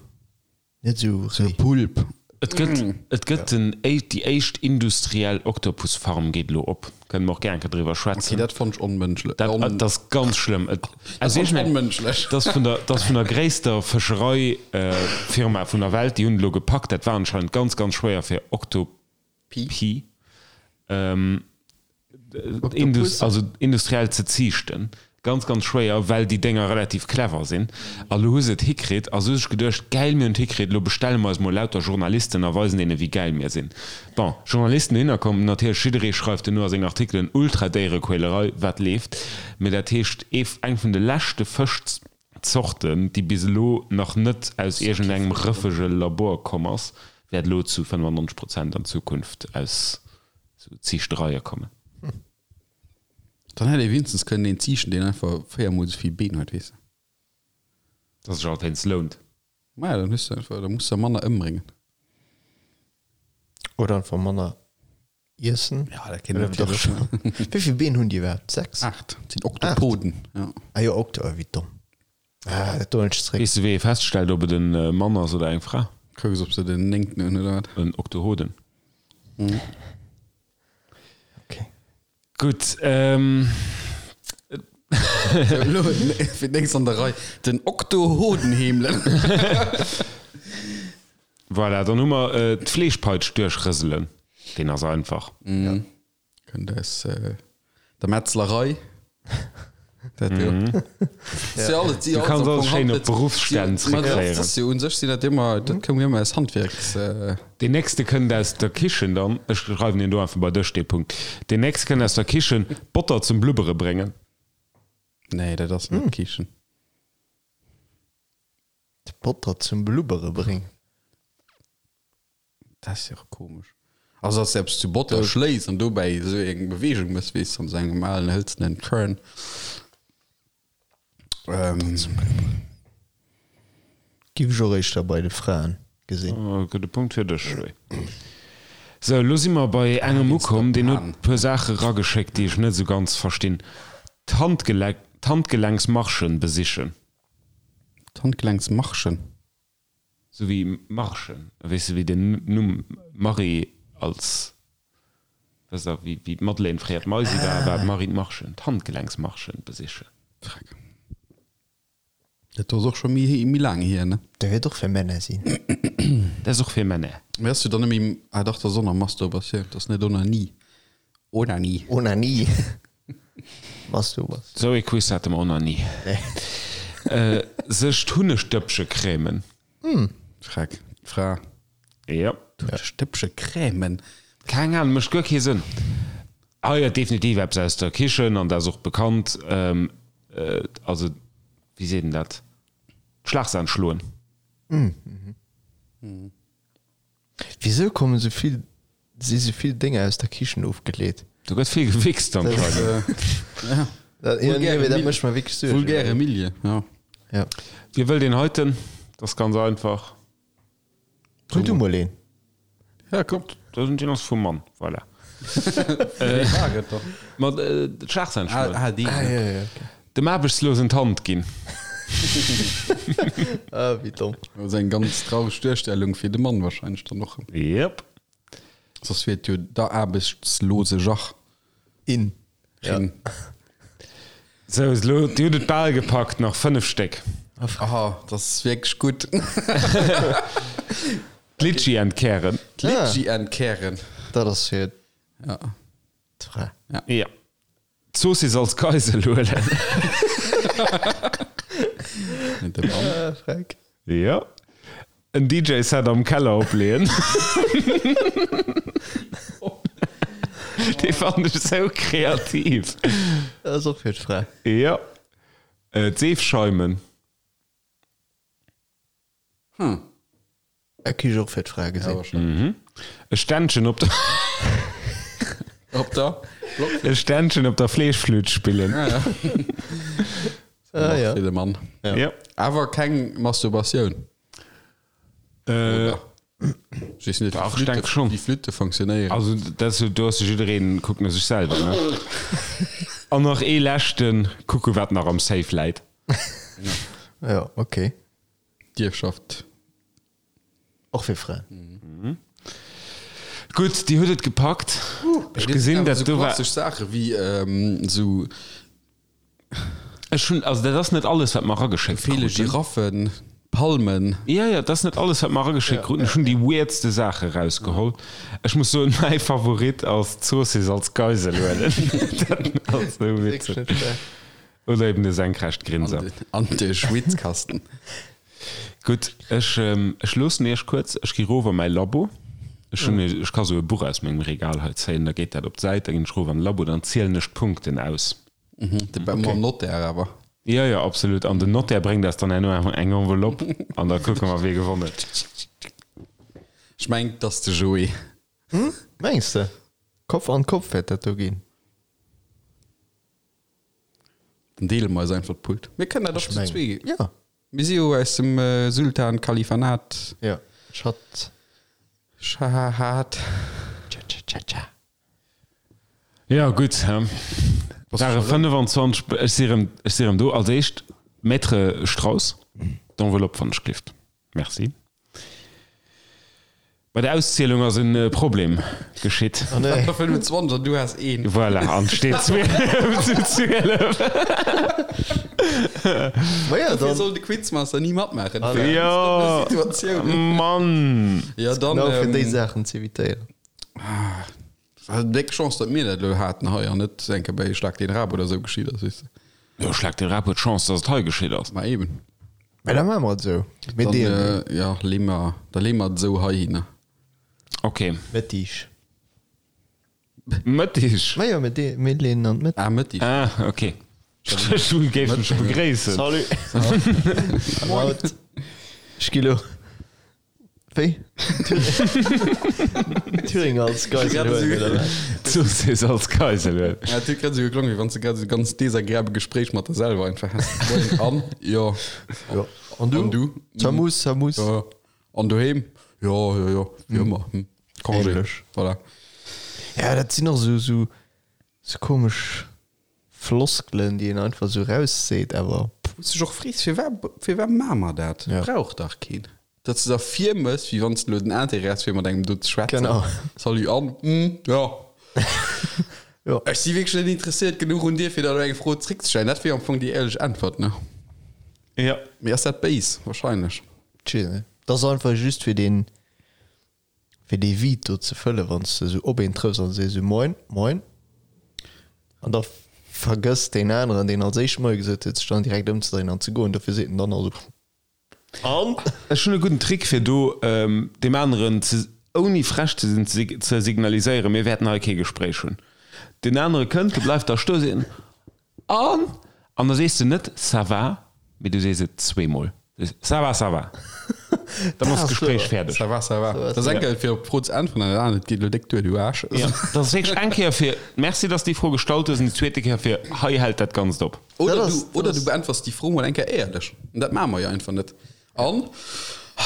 Net sou Sou réi. Pulp. Et gëtt, et gëtt den, déi éischt industriell Oktopusfarm geet elo op. Kënne mer och gär eng Kéier driwwer Okay, schwätzen. dat fonnt ech onmënschlech. Dat, On, dat ass ganz schlëmm. Et, dat also fonnt ech ech mengen, onmënschlech. dat ass vun der, dat ass vun der gréisster Fëscherei-Firma vun der Welt. Déi hunn et elo gepackt. Dat war anscheinend ganz, ganz schwéier fir Oktopi. Pi. Indus, also industriell ze ziichten. Ganz, ganz schwéier, well déi Dénger relativ clever sinn. A lo hu se et hikritt a se hu sech geduecht, gäil, mir hunn et hikritt, lo bestelle mer eis mol lauter Journalisten a weisen deene wéi gäil mir sinn. Bon, Journalisten dohinner komm, natierlech jidderee schreift duerno a seng Artikelen, Ultra-Déierequälerei, wat leeft. Mee dat heescht, ee, eng vun de leschte Fëschzorten, déi bis elo nach net aus iergendengem rëffege Labor komm ass, wäert elo zu 95 Prozent an Zukunft aus Sou Ziichtereie kommen. Dann hätt ee wéinstens kënnen een ziichten, deen einfach véiermol esou vill Been huet, weess de. Dass sech alt eens lount. Maja, dann hues de einfach, da muss de manner ëmbréngen. Oder einfach manner iessen. Ja, dat kéint Oder natierlech dach schon. Wéi vill Been hunn déi iwwerhaapt? 6? 8. Dat sinn Oktopoden, ja. Ah jo, Okto, wéi domm. Ah, dat doen ech zréck. Weess de wéi ee feststellt ob et en Mann ass oder eng Fra? Kucks ob se den néngten hunn oder wat. En Oktohoden. Okay. Gutt, ähm. Sou, elo fir d'nächst an der Rei den Oktohoden heemelen. Voilà, dann hu mer d'Fleeschpeitsch duerchrëselen. Deen ass einfach. Kënnt aus der Metzlerei. Dat jo. Si alles, si Du alles kanns am alles Fong schéin op Handwierks- Beruffsstänn si- ma dat zréckféieren. ass jo un sech sinn dat ëmmer, dat koum jo ëmmer aus Handwierks. Deen nächste kënnt aus der Kichen dann, ech schreiwen deen do einfach bei dech, dee Punkt. Deen nächste kënnt aus der Kichen, Botter zum Blubbere bréngen. Nee, dat ass net Kichen. D'Botter zum Blubbere bréngen. Dat ass jo och komesch. Also dass de eppes zu Botter schléis an dobäi esou eng Beweegung mëss, weess de, an esou engem alen hëlzenen Churn. Ähm. Giff ech och éischter bei de Fraen gesinn. Oh, gudde Punkt fir dech, Joé. Sou, elo si mer bei engem ukomm, deen huet e puer Saache rageschéckt, déi ech net esou ganz verstinn. D'Handgelenksmarschen besichen. D'Handgelenksmarschen? Sou wéi Marschen, weess de, wéi den Numm Marie als, weess der, wéi d'Madeleine fréier d'Maisi war, war d'Marie d'Marschen, d'Handgelenksmarschen besichen. Freck. Dat do ass och scho méi, méi laang hier, ne? Dat wäert och fir Männer sinn. Dat ass och fir Männer. Mee ass jo dann net méi, ah dach, dat ass och nach Masturbation, dat ass net Onanie. Onanie. Onanie. Masturbas. Sou ee Quiz hate mer och nach ni. Nee. Sech d'Hunnegdëppche cremen. Schreck. D'Fra. Jo. D'Hunnegdëppche cremen. Keng Ahnung, mécht guer kee Sënn. Hei huet definitiv eppes aus der Kichen an dat ass och bekannt. Also, wéi seet een dat? D'Schlagsahn schloen. Wisou kommen sou vill, si sou vill Dénger aus der Kichen ofgeleet? Do gëtt vill gewichst anscheinend. Dat, ja, nee, mee dat mécht mer wierklech Suergen. Vulgäre Milieu, ja. Ja. Wie wëll deen heiten? Dat ass ganz einfach. Huel du mol een. Ja, komm. Deen ass vum Mann, voilà. Wéi war et da? Ma d'Schlagzeilen schloen. Ah, deen. Ah, ja, ja, okay. Dem Aarbechtslosen d'Hand ginn. Ah, wéi domm. Dat ass eng ganz traureg Duerstellung fir de Mann wahrscheinlech dann och. Yep. Soss wier et jo der aarbechtslose Jach. In. Ja. Rin. Sou, elo, Dir hutt et bal gepackt, nach 5 Stéck. Aha, dat ass wierklech gutt. D'Litschi entkären. D'Litschi entkären. Dat ass fir Ja. d'Fra. Ja. D'Zoossiss als Geisel huelen. De Mann. Ah, Freck. Ja. En DJ-Set am Keller opleeën. Dee fannen ech sou kreativ. Dat ass och fir d'Fra. Ja. D'Seef scheimen. Hm. E Kich och fir d'Fra gesinn. E Ständchen op der Op der E Ständchen op der Fleeschflütt spillen. Ah, ja. Ah, ja. Fir de Mann. Ja. ja. Awer keng Masturbatioun. Äh, Ich weess net, Dach, wéi ich denk schon. Wéi Flütte funktionéieren. Also dat ass, do ass jiddereen kuckt no sech selwer, ne? An nach ee leschten, kucke wat nach am Safe läit. Ja, okay. D'Ierfschaft. Och fir Fraen. Gutt, Dir hutt et gepackt. Ech gesinn, dat do war. Klassesch Saache wéi esou. Ech hunn, also dat ass net alles, wat mer erageschéckt Feele kruten. Giraffen, Palmen. Jo, jo, dat ass net alles, wat mer erageschéckt kruten. Ech hunn déi weirdste Saache rausgeholl. Ech muss soen, mäi Favorit ass d'Zoossiss als Geisel huelen. Dat ass esou witzeg. Oder eben de senkrecht Grinser. An de Schwitzkasten. Gutt, ech, ech loossen iech kuerz. Ech gi rof a mäi Labo. Ech hunn, ech ka sou e Buch aus mengem Regal hei zéien, da geet dat op d'Säit, da ginn ech rof an de Labo, dann zielen ech d'Punkten aus. De mam Notaire awer. Jo, jo, absolut. An den Notaire bréngt eis dann herno eng Enveloppe an da kucke mer, wie gewonnen huet. Ech mengen, 't ass de Joé. Mengs de? Kopf an Kopf wäert dat do ginn. Dann deele mer eis einfach d'Pult. Mir kënnen dat och zu zwee. Ja. Mir si jo aus dem Sultan Kalifanat. Ja. Schat. Schahat. Tscha tscha tscha tscha. Ja gutt, hä? Ware 25, ech si rëm, ech si rëm do. Als éischt, Maître Strauss, d'Enveloppe wann ech gelift. Merci. Bei der Auszielung ass en Problem geschitt. Oh nee. 25 an du has een. Voilà, an steet 12 zu 12. Ma ja, Dofir dann. soll de Quizmaster ni matmaachen. Jo, Situatioun. Mann. Ja, dann. Genau fir déi Ähm, Saachen z'evitéieren. war déck Chance, datt mir dat elo haten hei an net enke bei Schlag den Rab oder sou geschitt ass, weess de. Jo, Schlag den Rab huet Chance, datt et hei geschitt ass. Ma eben. Mä da maache mer et esou. Mir Dann, deelen äh, ja, lee mer, da lee mer et esou heihinner. Ok. Mëttig. Mëttig? Ma jo, mir dee, mir leeën an d'Mëtt. Ah, Mëttig. Ah, ok. Ech géif mech begréissen. Salut. Haut. Ech gi lo. Wéi? Thüringer als Geisel huelen, oder wat? Zoossiss als Geisel huelen. Ja, et huet grad esou geklongen, wéi wann s de grad esou e ganz desagreabel Gespréich mat der selwer einfach häss. Moien, an? Jo. Jo. An du? An du? Samus, Samus. Jo. An doheem? Jo, jo, jo, wéi ëmmer. Hm. Congé. Ähnlech. Voilà. Ja, dat sinn och esou, esou, esou komesch Floskelen, déi een einfach esou rausseet, awer. Wou s dech och frees, firwat, firwat maache mer dat? Ja. Brauch dach keen. Datt s de der virmëss, wéi wann s de elo den Intérêt häss, fir mat engem do ze schwätzen. Genau. Salut, an? Hm, jo. Jo. Ech si wierklech net interesséiert genuch un dir, fir der elo eng Fro zréckzestellen. Dat wier am Fong déi éierlech Äntwert, ne? Ja. Mee ass dat béis? Wahrscheinlech. Tje, ne. Dat ass einfach just fir deen, fir dee Vide do ze fëllen, wann s de esou op een trëffs an sees esou Moin, moin. An da. Vergësst deen aneren, deen als éischt Moie gesot huet, sech dann direkt ëmzedréinen an ze goen. Dofir seet en dann also, An? Ech hunn e gudden Trick fir do deem aneren ze, ouni frech ze sinn, ze signaliséieren, mir wäerten hei kee Gespréich hunn. Deen anere kënnt, du bleifs da stoen, seet en, An? An da sees de net ça va, mee du sees et zweemol. Du sees, Ça va, ça va. Dann ass d'Gespréich fäerdeg. Ça va, ça va. Dat ass eng Kéier fir op d'Fro ze äntweren an dat anert geet elo déck duer, du Aarsch. Jo, dat ass wierklech eng Kéier fir Merci, dass de déi Fro gestallt hues an déi zweete Kéier fir Hei hält dat Ganzt op. Oder du, oder du beäntwers déi Fro mol eng Kéier éierlech. An dat maache mer jo einfach net. An, oh,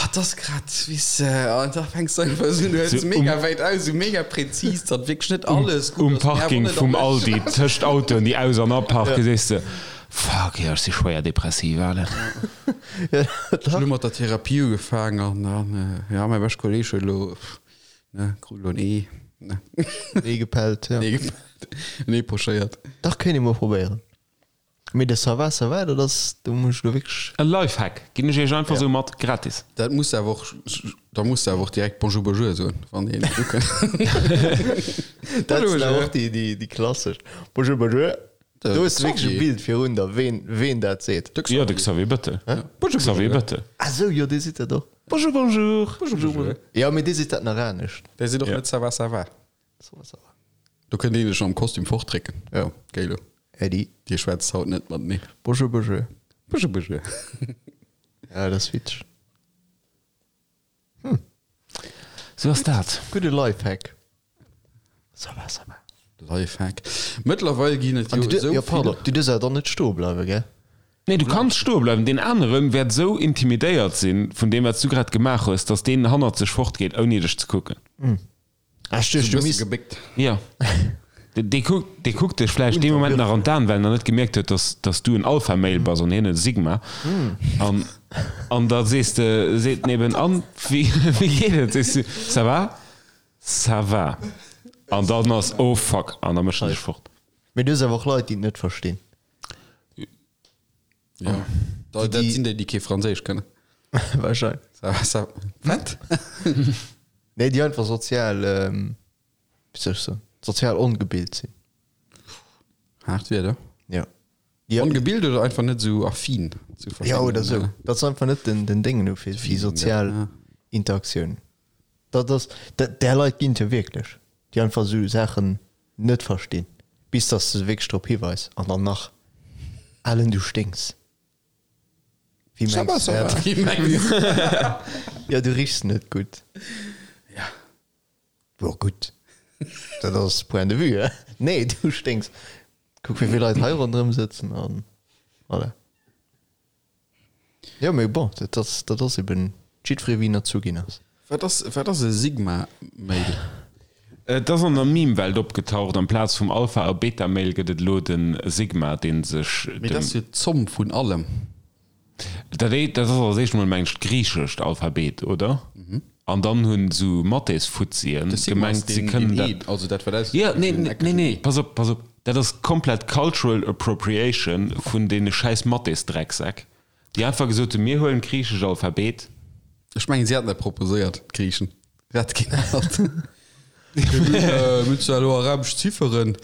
et ass grad, weess de, an da fänks du einfach esou un, du hëls mega wäit aus, esou mega präzis, datt wierklech net alles gutt ass. Um Parking vum Aldi, tëscht Autoen, déi aus an aparken, sees de, Fuck, jo, ech si schwéier depressiv, Alen. Ech hunn elo mat der Therapie ugefaangen an dann, jo, mäi beschte Kolleeg huet elo, ne, krut elo en Ee, ne. En Ee gepellt, jo. En Ee gepellt, en Ee pochéiert. Dach, kéint ee mol probéieren. Mee de Ça va, ça va, dat ass, do muss ech elo wierklech. E Lifehack ginn ech iech einfach esou mat, gratis. Dat muss de awer och, da muss de awer och direkt Bonjour, bonjour soen, wann een ukënnt. Dat sinn awer och déi, déi, déi klassesch. Bonjour, bonjour. Do hues de wierklech e Bild virun der, ween, ween dat seet. Jo, de Xavier Bettel. Bonjour, Xavier Bettel. Ah sou, jo, dee seet dat och. Bonjour, bonjour. Bonjour, bonjour. Jo, mee dee seet dat nach anescht. Dee seet och net Ça va, ça va. Ça va, ça va. Do kënnt een dech am Kostüm fortdrécken. Jo. Géi lo. Äddi. Dir schwätzt haut net matenee. Bonjour, bonjour. Bonjour, bonjour. Ja, dat ass witzeg. Sou ass dat. Gudde Lifehack. Ça va, ça va. Lifehack. Mëttlerweil ginn et jo esou vill. Pardon, du duerfs awer dann net stoe bleiwen, gell? Nee, du kanns stoe bleiwen. Deen anere wäert esou intimidéiert sinn vun deem, wat s du grad gemaach hues, dass deen hannert sech fortgeet, ouni dech ze kucken. Ah, ech duecht, du misst. Gebéckt. Jo. Dee kuckt, dee kuckt dech vläicht dee Moment nach an d'Aen, well en nach net gemierkt huet, dass, dass du en Alpha-Male bass an hien e Sigma. An, an da sees de, seet en eben, An, wéi, wéi geet et? Sees du, Ça va? Ça va. An dann ass, Oh fuck, an da mécht en sech fort. Mee du hues awer och Leit, déi et net verstinn. Ja. Da, dat sinn déi, déi kee Franséisch kënnen. Wahrscheinlech. Ça va, ça Wat? Nee, déi einfach sozial, wéi soll ech soen, sozial ongebilt sinn. Haart Wierder. Ja. Déi, Ongebilt oder einfach net esou affin zu verschiddenen. Ja, oder esou. Dat se einfach net den, den Déngen hu fir, fir sozial ja. Interaktioun. Dat ass, dat, där Leit ginn et jo wierklech, déi einfach esou Saachen net verstinn, bis dass de se wierklech drop hiweis an dann nach, Alen, du sténks. Wéi mengs du dat? Wéi mengs du dat? Jo, du richs net gutt. Ja. Jo, gutt, dat ass Point de vue, he? Nee, du sténks. Kuck, wéi vill Leit hei ronderëm sëtzen an voilà. Jo, mee bon, dat ass, dat ass eben jiddweree wéi en erzu ginn ass. Wat ass, wat ass e Sigma-Male? Et ass an der Meme-Welt opgetaucht, amplaz vum Alpha a Beta-Male gëtt et elo de Sigma, dee sech Mee dat ass jo d'Zomm vun allem. Dat dat ass als éischt emol, mengen ech, d'griichescht Alphabet, oder? An dann hunn esou Mathésfuzzien De Sigma ass gemengt, se deen, kënnen deen dat. E, also dat wat aus Jo, nee, nee, nee, nee, pass op, pass op, dat ass komplett cultural appropriation vun deene schäiss Mathésdrecksäck, déi einfach gesot hunn, mir huelen d'griichescht Alphabet. Ech mengen, si haten dat proposéiert, d'Griichen. Si hate keen anert. Mir hunn zwar elo arabesch Zifferen.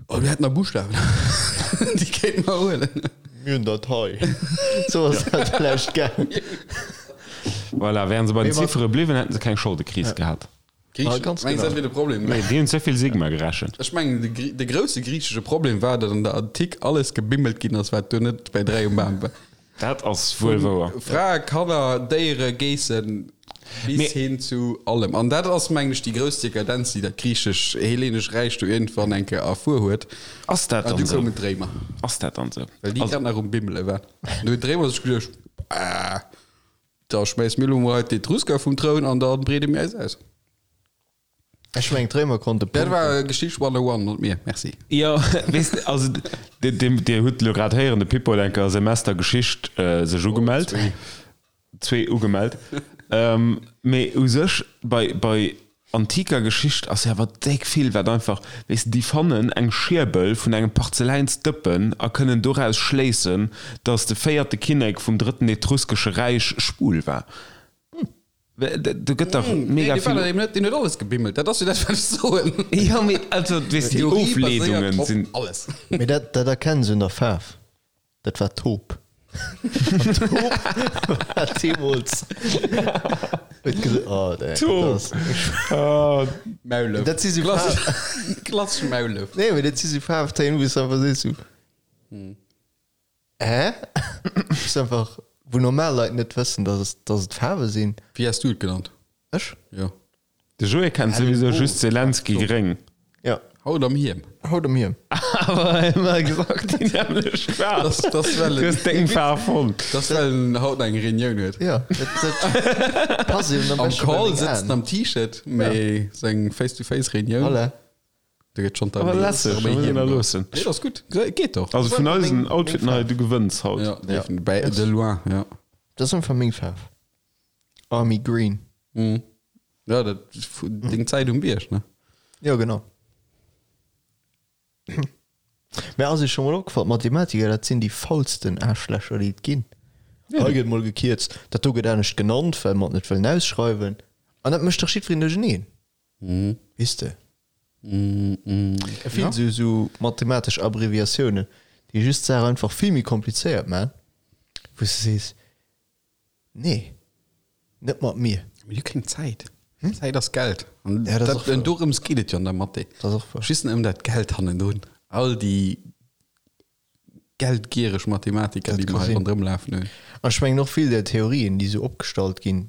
Oh, mir hätten nach Buschtawen. Déi kéinte mer huelen. Mir hunn dat hei. Sou ass dat vläicht gaang. Voilà, wären se bei den Ziffere bliwwen, hätten se keng Scholdekris gehat. Griechen, ganz mengs genau. dat wier de Problem? Nee, déi hunn ze vill Sigma gerechent. Ech mengen, de, Grie- de grousse griichesche Problem war, datt an der Antik alles gebimmelt ginn ass, wat do net bei 3 um Bam war. Dat ass wuel wouer. Frae, Kanner, Déiere, Geessen, bis Mee- hin zu allem. An dat ass, mengen ech, déi grouss Dekadenz, déi dat griechesch-hellenesch Räich do iergendwann eng Kéier erfuer huet. Ass dat An dann du esou? koumen d'Réimer, Ass dat dann esou? well déi Also, grad nach um Bimmele waren. Du hunn d'Réimer sech geduecht, Ah, da schmäisse mir elo mol hei d'Etrusker vum Troun an da breede mir eis aus. Ech mengen d'Réimer konnte Dat punkten. war Geschicht 101, not mir. Merci. Jo, weess de, also Dir hutt elo grad héieren, de Pippo huet eng Kéier Semester Geschicht sech ugemellt. Zwee ugemellt. Mee u sech bei, bei antiker Geschicht ass jo awer déck vill, wat einfach, weess de, déi fannen eng Schierbel vun engem Parzeläinsdëppen a kënnen doraus schléissen, datt de véierte Kinnek vum drëtten etruskesche Räich schwul war. Do gëtt dach mega vill. Nee, deen huet alles gebimmelt, dat ass jo dat, wat ech soen. Jo, mee also, weess de, déi Ofleedungen sinn. Alles. Mee dat, dat erkenns un der Faarf. Dat war Taupe. An Taupe war deemools. Huet gesot, oh, dat ass. Taupe. Maulef. Dat si sou Faarf. Klassesch Maulef. Nee, mee dat si sou Faarftéin, wou s de einfach sees, sou. Hä? Ass einfach, wou normal Leit net wëssen, dass et, dass et Faarwe sinn. Wéi has du et genannt? Ech? Jo. De Joé kennt souwisou just Zelensky gréng. Jo. Haut am Hiem. Haut am Hiem. Awer ëmmer exakt déi nämmlecht Faarf. Das, das well Du hues deng Faarf fonnt. Das well en haut eng Reunioun huet. Jo, dat, dat passt eben am Am beschte bei Call meng sëtzt en Aen. am T-Shirt, mee seng Face-to-Face-Reunioun. Voilà. Do gëtt schonn Aber lässeg, d'Arméi muss een Hiem da do. loossen. Nee, dat ass gutt. Geet doch. Also vun eisen Outfiten hei, du gewënns haut. Ja, definitiv. Bei de loin, ja. Dat ass einfach meng Faarf. Army Green. Mhm. Ja, dat deng Zäit um Bierg, ne? Jo, genau. Mä ass iech scho mol opgefall, d'Mathematiker, dat sinn déi faulsten Aarschlächer, déi et ginn. Hei gëtt mol gekierzt, dat do gëtt anescht genannt, well mer et net wëllen ausschreiwen. An dat mécht dach jiddwereen duercheneen. Weess de? Vill esou esou mathematesch Abbreviatiounen, déi just d'Saach einfach vill méi komplizéiert man, wou s de sees, nee, net mat mir. Mir hu keng Zäit. Zäit ass Geld. An Ja, dat ass och dat, wouer. dorëms geet et jo an der Mathé. Dat ass och wouer. Just ëm dat Geld hannendrun. All déi geldgiereg Mathematiker, Dat déi ka mer hei sinn. ronderëm lafen hunn. An ech mengen och vill där Theorien, déi esou opgestallt ginn,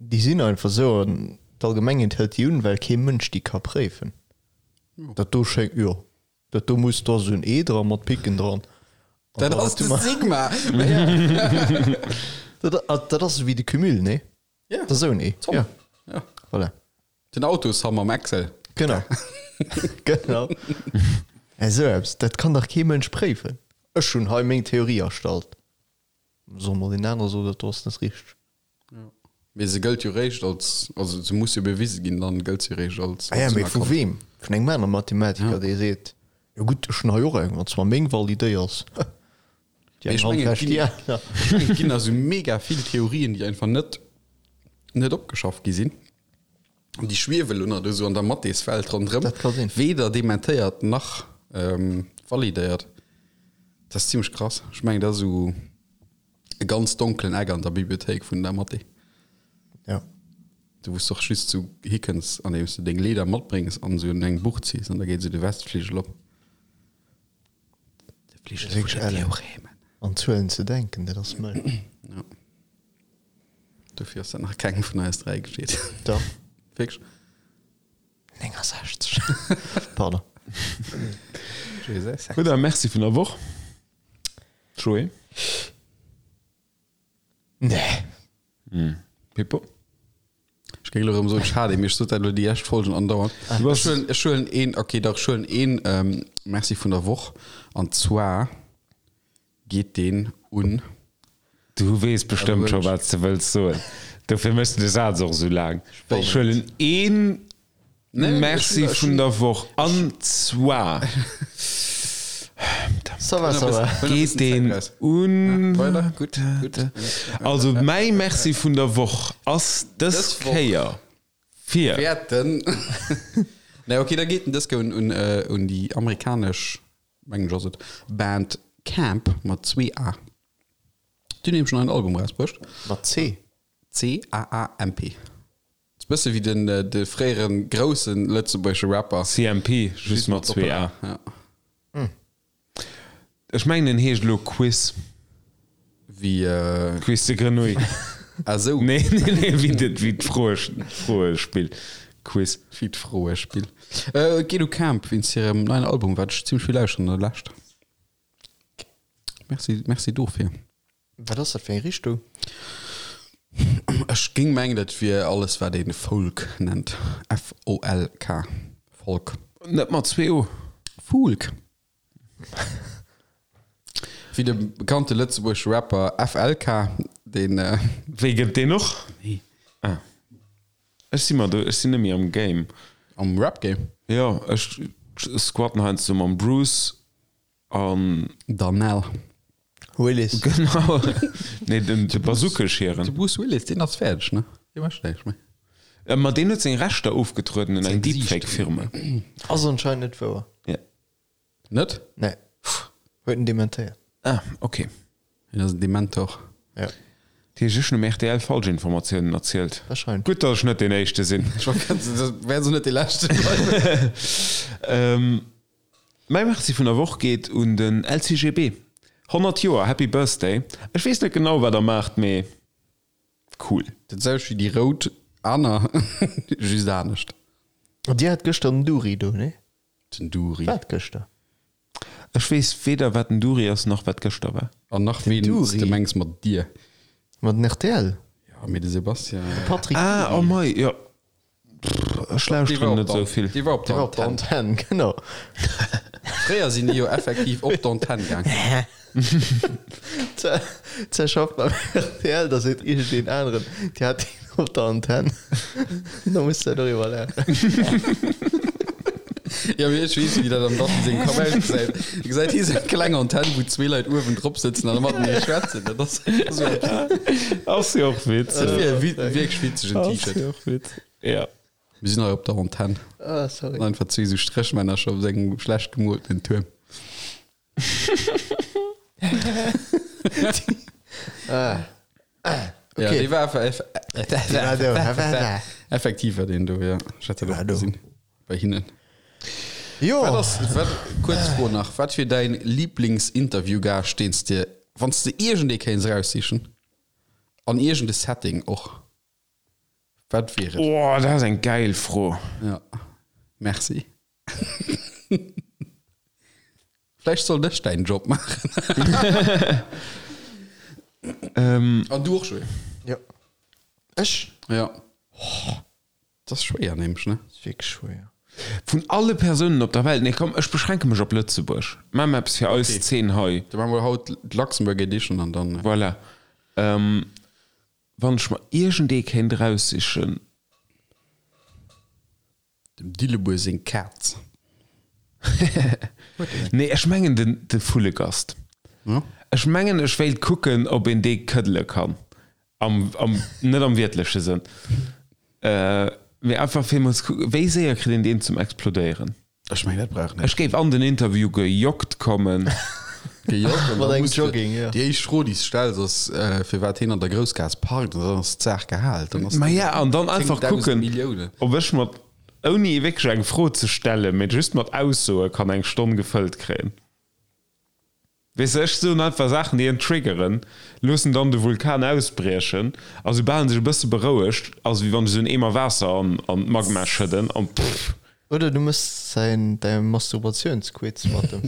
déi sinn einfach esou an d'Allgemengheet hëlt déi un, well kee Mënsch déi ka préifen. Dat do schéngt, jo, dat do muss, do ass esou en E dra mat Picken dran. An Dat da ass du de mar- Sigma! Dat, dat ass esou wéi de Cumul, nee? Ja. Dat ass esou en E. Zomm. Ja, Ja. voilà. Den Autoshammer am Excel. Genau. Genau. Esou eppes, dat kann dach kee Mënsch préifen. Ech hunn hei meng Theorie erstallt. Soll mol een aner soen, dat do ass net richteg. Mee se gëllt jo réischt als, also se muss jo bewise ginn, dann gëllt se réischt als. Ah ja, mee vu weem? Vun engem anere Mathematiker, dee seet, jo gutt, ech hunn hei och eng, wann s mer meng validéiers. Déi Mee eng ech Hand mengen, et wäscht déi ginn, aner. ech mengen, et ginn also mega vill Theorien, déi einfach net, net opgeschafft gi sinn. An déi schwiewe lo nach do sou an der Mathéswelt ronderëm. Dat ka sinn. Weder dementéiert nach validéiert. Dat ass zimmlech krass. Ech mengen, dat ass esou e ganz donkelen Eck an der Bibliothéik vun der Mathé. Ja. Do wou s de och just sou hikënns, andeems de deng Leeder matbréngs an esou un eng Buch ziss an da geet esou de Westfligel op. De Fligel vun den Theoremen. An Zuelen ze denken, dat ass mëll. Ja. Dofir ass dat nach kengem vun eis 3 geschitt. Dach. Wierklech? 69. Pardon. Jesus. Gutt, a Merci vun der Woch, Joé. Nee. Pippo? Ech géing elo erëm soen, schade, mee ech sot dat elo déi lescht Folgen andauernd. Du Ech huelen, ech huelen een, okay, dach, ech huelen een ähm, Merci vun der Woch. An zwar geet deen un. Du weess bestëmmt scho wat s de wëlls soen. Dofir méchs de de Saz och esou laang. Ech huelen een Merci vun der Woch an zwar Ça va, ça va. geet deen un. Also mäi Merci vun der Woch ass dës Kéier fir. Wäerten. Nee, okay, da geet en dës Kéier un, un déi amerikanesch mengen ech ass et, Band Camp mat zwee A. Déi hunn nämlech en neien Album erausbruecht. Mat C? C-A-A-M-P. Ass bësse wéi den de fréiere grousse lëtzebuergesche Rapper. CMP, just mat zwee A. Ja. Ech mengen en heescht elo Quiz. Wéi. Quiz de Grenouille. Ah sou. Nee, nee, nee, wéi de, wéi d'Froespill. Quiz. Wéi d'Froespill. Et geet u Camp wéinst hirem neien Album, wat ech zimmlech vill lauschteren an der Lescht. Merci, merci dofir. Wat ass dat fir eng Richtung? Ech géing mengen, dat wier alles, wat ee Folk nennt. F-O-L-K. Folk. Net mat zwee O. Folk. Wéi de bekannte lëtzebuergesche Rapper FLK, deen. Wéi gëtt deen och? Nee. Ah. Ech si mer do, ech sinn net méi am Game. Am Rap-Game? Jo, ech squatten heiansdo mam Bruce an. Darnell. Willis. Genau. Nee, den, de Bazookescheren. De Bruce Willis, deen ass fäerdeg, ne? Dee mécht näischt méi. Ma deen huet seng Rechter ofgetrueden un eng Deepfake-Firma. Ass anscheinend net wouer. Ja. Net? Nee. Huet en dementéiert. Ah, ok. Hien ass en Dementor. Ja. Dat heescht, ech hunn um rtl Falschinformatiounen erzielt. Wahrscheinlech. Gutt, datt ech net deen Éischte sinn. Ech wollt grad soen, dat wäert esou net dee Leschte bleiwen. Mäi Merci vun der Woch geet un den LCGB. 100 Joer, Happy Birthday! Ech weess net genau, wat der maacht, mee cool. Dat selwecht wéi déi rout aner, just anescht. An dir hat gëschter den Duri do, nee? Den Duri. Wat gëschter? Ech weess weder wat den Duri ass, nach wat gëschter war. An nach ween s de mengs mat dir. Mat den rtl? Jo, mee de Sebastian. De Patrick Ah, oh mei, jo. Ech lauschteren net esou vill. Dee war op der Antenn. Genau. Fréier sinn déi jo effektiv op d'Antenn gaang. Ze schafft beim rtl, da seet iergendeen aneren, Dir hat deen op der Antenn. Da muss de doriwwer laachen. Jo, mee ech weess, wéi dat am Datti sengem Kapp ausgesäit. E gesäit hie sou eng kleng Antenn, wou zwee Leit uewen drop sëtzen an matenee schwätzen. Dat ass esou eppes. Ass jo och witzeg. Dat wier e wierklech witzegen T-Shirt. Ass jo och witzeg, ja. Mir sinn hei op der Antenn. Ah, sorry. An einfach zwee sou Stréchmännercher op sengem schlecht gemoltenen Tuerm. Ah. Ja, dee war effektiv war deen do, ja. Ech hat dat och gesinn bei hinnen. Jo. Wat ass, wat, kuerz Fro nach, wat wier däin Lieblingsinterviewgaascht, deen s de, wann s de iergendee kéints eraussichen, an iergende Setting och, wat wier et? Oh, dat ass eng gäil Fro. Ja, merci. Vläicht sollt ech däin Job maachen. An du och, Joé? Jo. Ech? Ja. Dat ass schwéier nämlech, ne? Ass wierklech schwéier. Vun alle Persounen op der Welt? Nee, komm, ech beschränke mech op Lëtzebuerg. Maache mer eppes fir eis Zeen hei. Da maache mer haut d'Luxembourg Edition an dann. Voilà. Wann ech mer iergendee kéint eraussichen. Dem Dillebuer seng Kaz. Nee, ech mengen den de Vullegast. Ech mengen ech wéilt kucken, ob een dee këddele kann. Am, am, net am wiertleche Sënn. Mee einfach fir emol ze kucken, wéi séier kritt een deen zum Explodéieren. Ech mengen dat brauch net. Ech géif an den Interview gejoggt kommen. Gejoggt an Mat da engem muss de, Jogging, jo. déi éischt Fro déi s stells ass, firwat hien an der Groussgaass parkt an dann ass d'Saach gehal. Dann ass Ma ja, an dann einfach 10.000 kucken, Milliounen. ob ech mat, ouni wierklech eng Fro ze stellen, mee just mat Aussoe kann eng Stonn gefëllt kréien. Weess de, ech soen einfach Saachen, déi en triggeren, loossen dann de Vulkan ausbriechen a soubal en sech e bësse berouegt, ass et wéi wann ech esou en Eemer Waasser an d'Magma schëdden an pff. Oder du mëss säin, däi Masturbatiounsquiz mat em.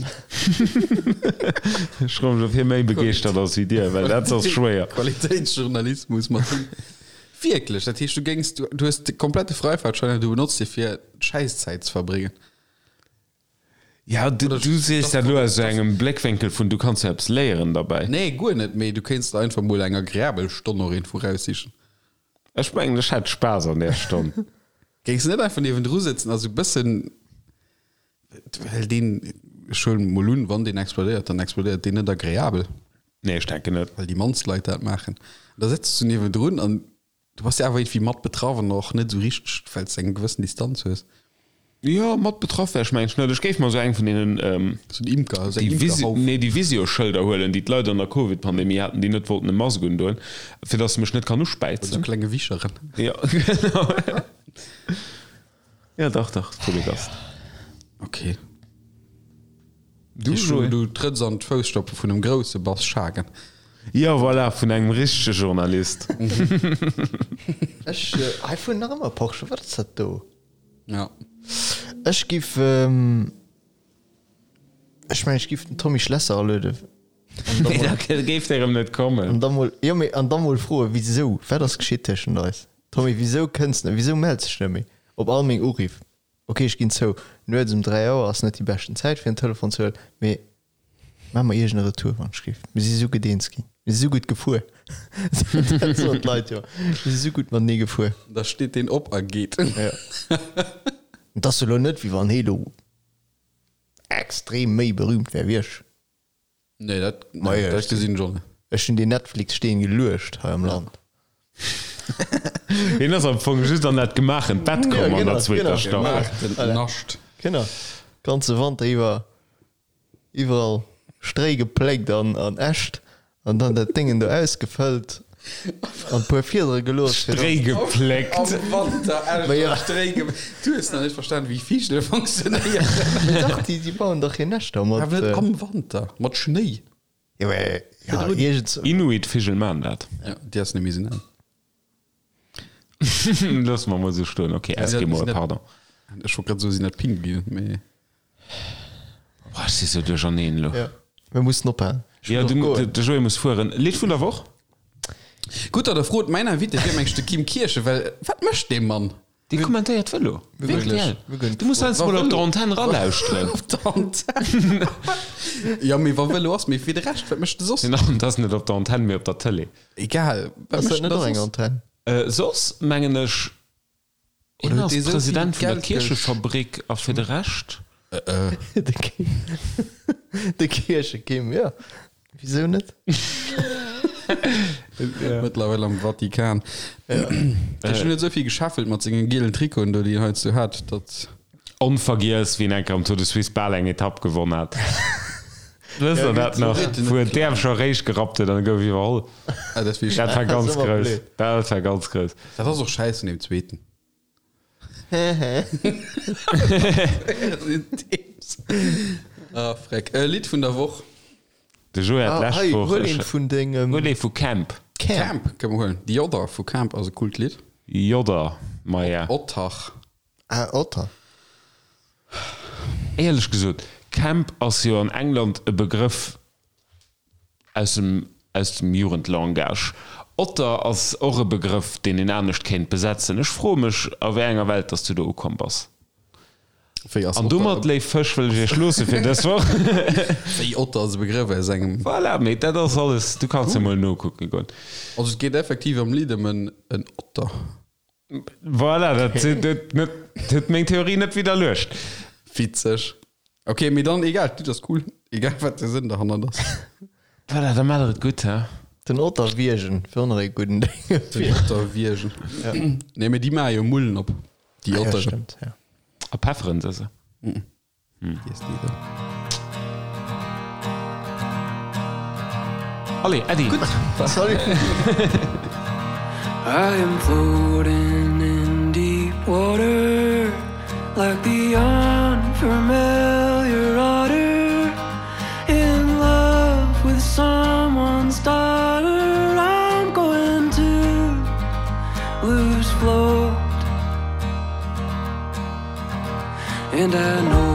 Ech froe mech, ob hie méi begeeschtert ass wéi dir, well dat ass schwéier. Qualitéitsjournalismus mat him. Wierklech? Dat heescht, du géings, du hues de komplette Freifahrtschein an du benotz dee fir Schäisszäit ze verbréngen? Ja, du, du sees dat elo aus engem Bléckwénkel vun, du kanns jo eppes léieren derbäi. Nee, guer net, mee du kéints der einfach mol eng agreabel Stonn och iergendwou raussichen. Ech mengen, ech hätt Spaass an där Stonn. Géings de net einfach niewendru sëtzen a sou bëssen, well deen, ech huelen mol un, wann deen explodéiert, dann explodéiert deen net agreabel. Nee, ech denken net. Well déi mannst Leit dat maachen. Da sëtz du niewendrun an Du bass jo awer iergendwéi mat betraff an och net esou richteg, well s de eng gewëssen Distanz hues. Jo, mat betraff wär ech mengen ech net. Ech géif mer esou eng vun deenen, Esou en Imker, esou eng déi Visi, Imkerhauf. nee, déi Visio-Schëlder huelen, déi d'Leit an der Covid-Pandemie haten, déi net wollten e Mask undoen, fir dass se mech net kann Mat esou uspäizen. klenge Wicheren. Jo, genau. Jo, dach, dach, Vullegast. Ok. Du, Joé? Du trëtts an d'Fousstoppe vun em grousse Bass Schagen. Jo, voilà, vun engem richtege Journalist. Ech, hei fueren nach ëmmer Porsche, wat ass dat do? Ja. Ech giff, ech mengen ech giff den Tommy Schlesser alueden. Nee, da géif der erëm net kommen. An da mol, jo mee, an da mol froen, wisou, wat ass geschitt tëschent eis? Tommy, wisou kënns net, wisou mells dech net méi op all meng Uriff? Ok, ech ginn zou, nuets um 3 Auer ass net déi beschten Zäit fir en Telefon ze huelen, mee maach mer iergend e Retour wann ech giff. Mir si sou gutt eens ginn, mir si sou gutt gefuer. Dat soen d'Leit jo, mir si sou gutt matenee gefuer. Da steet deen op a geet. Jo. Et ass jo elo net wéi wann hee lo extrem méi berühmt wär wéi ech. Nee, dat, nee, dat gesinn ech och net. Ech hunn deen Netflix-Steen geluecht hei am Land. Hien ass am Fong just an dat gemaachent Bett komm an der zweeter Staffel. Gemaachtent Nascht. Genau, ganze Wanter iwwer iwwerall Stréi gepléckt an an Äscht an dann dat Déngen do ausgefëllt an puer Fiedere gelooss fir Stréi gepléckt. Am Wanter Äscht Ma ja. a Stréi ge Du hues nach net verstan wéi Vigele funktionéieren. Mee dach, déi déi bauen dach hir Näschter mat. Awer net am Wanter, mat Schnéi. Jo, mee ja, iergends. Inuit-Vigel maan dat. Ja, déi ass net méi esou al. Loosse mer mol esou stoen. Ok, Eskimoe, pardon. Ech wollt grad soen, sinn dat Pinguinen, mee. Boah, ech si sou duercherneen elo. Ja, mir mussen ophalen. Ech Ja, muss du, och goen. de Joé muss fueren. Lidd vun der Woch? Gutt, datt Der frot. Mäin Invité wier mengs de Kim Kirchen, well wat mécht dee Mann? Dee kommentéiert Vëlo. Wierklech? RTL. Du muss heiansdo mol op der Antenn ralauschteren. Op der Antenn? Jo, mee wa Vëlo ass, mee fir de Rescht, wat mécht e soss? Dat ass net op der Antenn, mee op der Tëlee. Egal, wat Ass mécht dat en net da och eng soss? Antenn? Soss mengen ech, hien Oder huet ass dee sou vill President vun der Geld gesch. Kierchefabrik a fir de Rescht. De Kim, de Kierchekim, jo, wisou net? Mëttlerweil am Vatikan. Ech hunn net esou vill gescheffelt mat sengen gielen Trikoten do, déi en heiansdo hat, datt. Onvergiess, wéi en eng Kéier am Tour de Suisse bal eng Etapp gewonn hat. Wësst der dat nach? Wou en d'Äerm scho eréischt gerappt huet an e gouf iwwerholl. Dat war ganz grouss. Dat war ganz grouss. Dat ass och schäiss vun deem zweeten. Ah, freck. E Lidd vun der Woch. De Joé hat Ah, d'lescht hei, Woch. huel eent vun dengem. Huel ee vu Camp. Camp kënne mer huelen. The Other vu Camp ass e coolt Lidd. Jodder, maja. Ottach. Ah, Otter. Éierlech gesot, Camp ass jo an England e Begrëff aus dem aus dem Jugendlangage. Otter ass och e Begrëff, deen een anescht kéint besetzen. Ech froe mech, a wéi enger Welt dass du do ukomm bass. Wéi ass An domat, Otter? léif Fësch, wëll ech iech loosse fir dës Woch. Wéi Otter ass e Begrëff aus engem. Voilà, mee dat ass alles. Du kanns jo mol nokucke goen. Also et geet effektiv am Lidd ëm en Otter. Voilà, dat huet meng Theorie net widderluecht. Witzeg. Ok, mee dann egal, d'Lidd ass cool, egal wat de Sënn derhannert ass. Voilà, da maacht der et gutt, he? Den Otter wiergen wier och nach ee gudden Déng. Den Otter wiergen. Nee, mee déi maache jo Mullen op, déi Ah ja, Otteren. stëmmt, ja. A pefferen se se. Allez, Äddi! Salut! I am floating in deep water like the unfamiliar otter in love with someone's daughter I'm going to lose float And I know.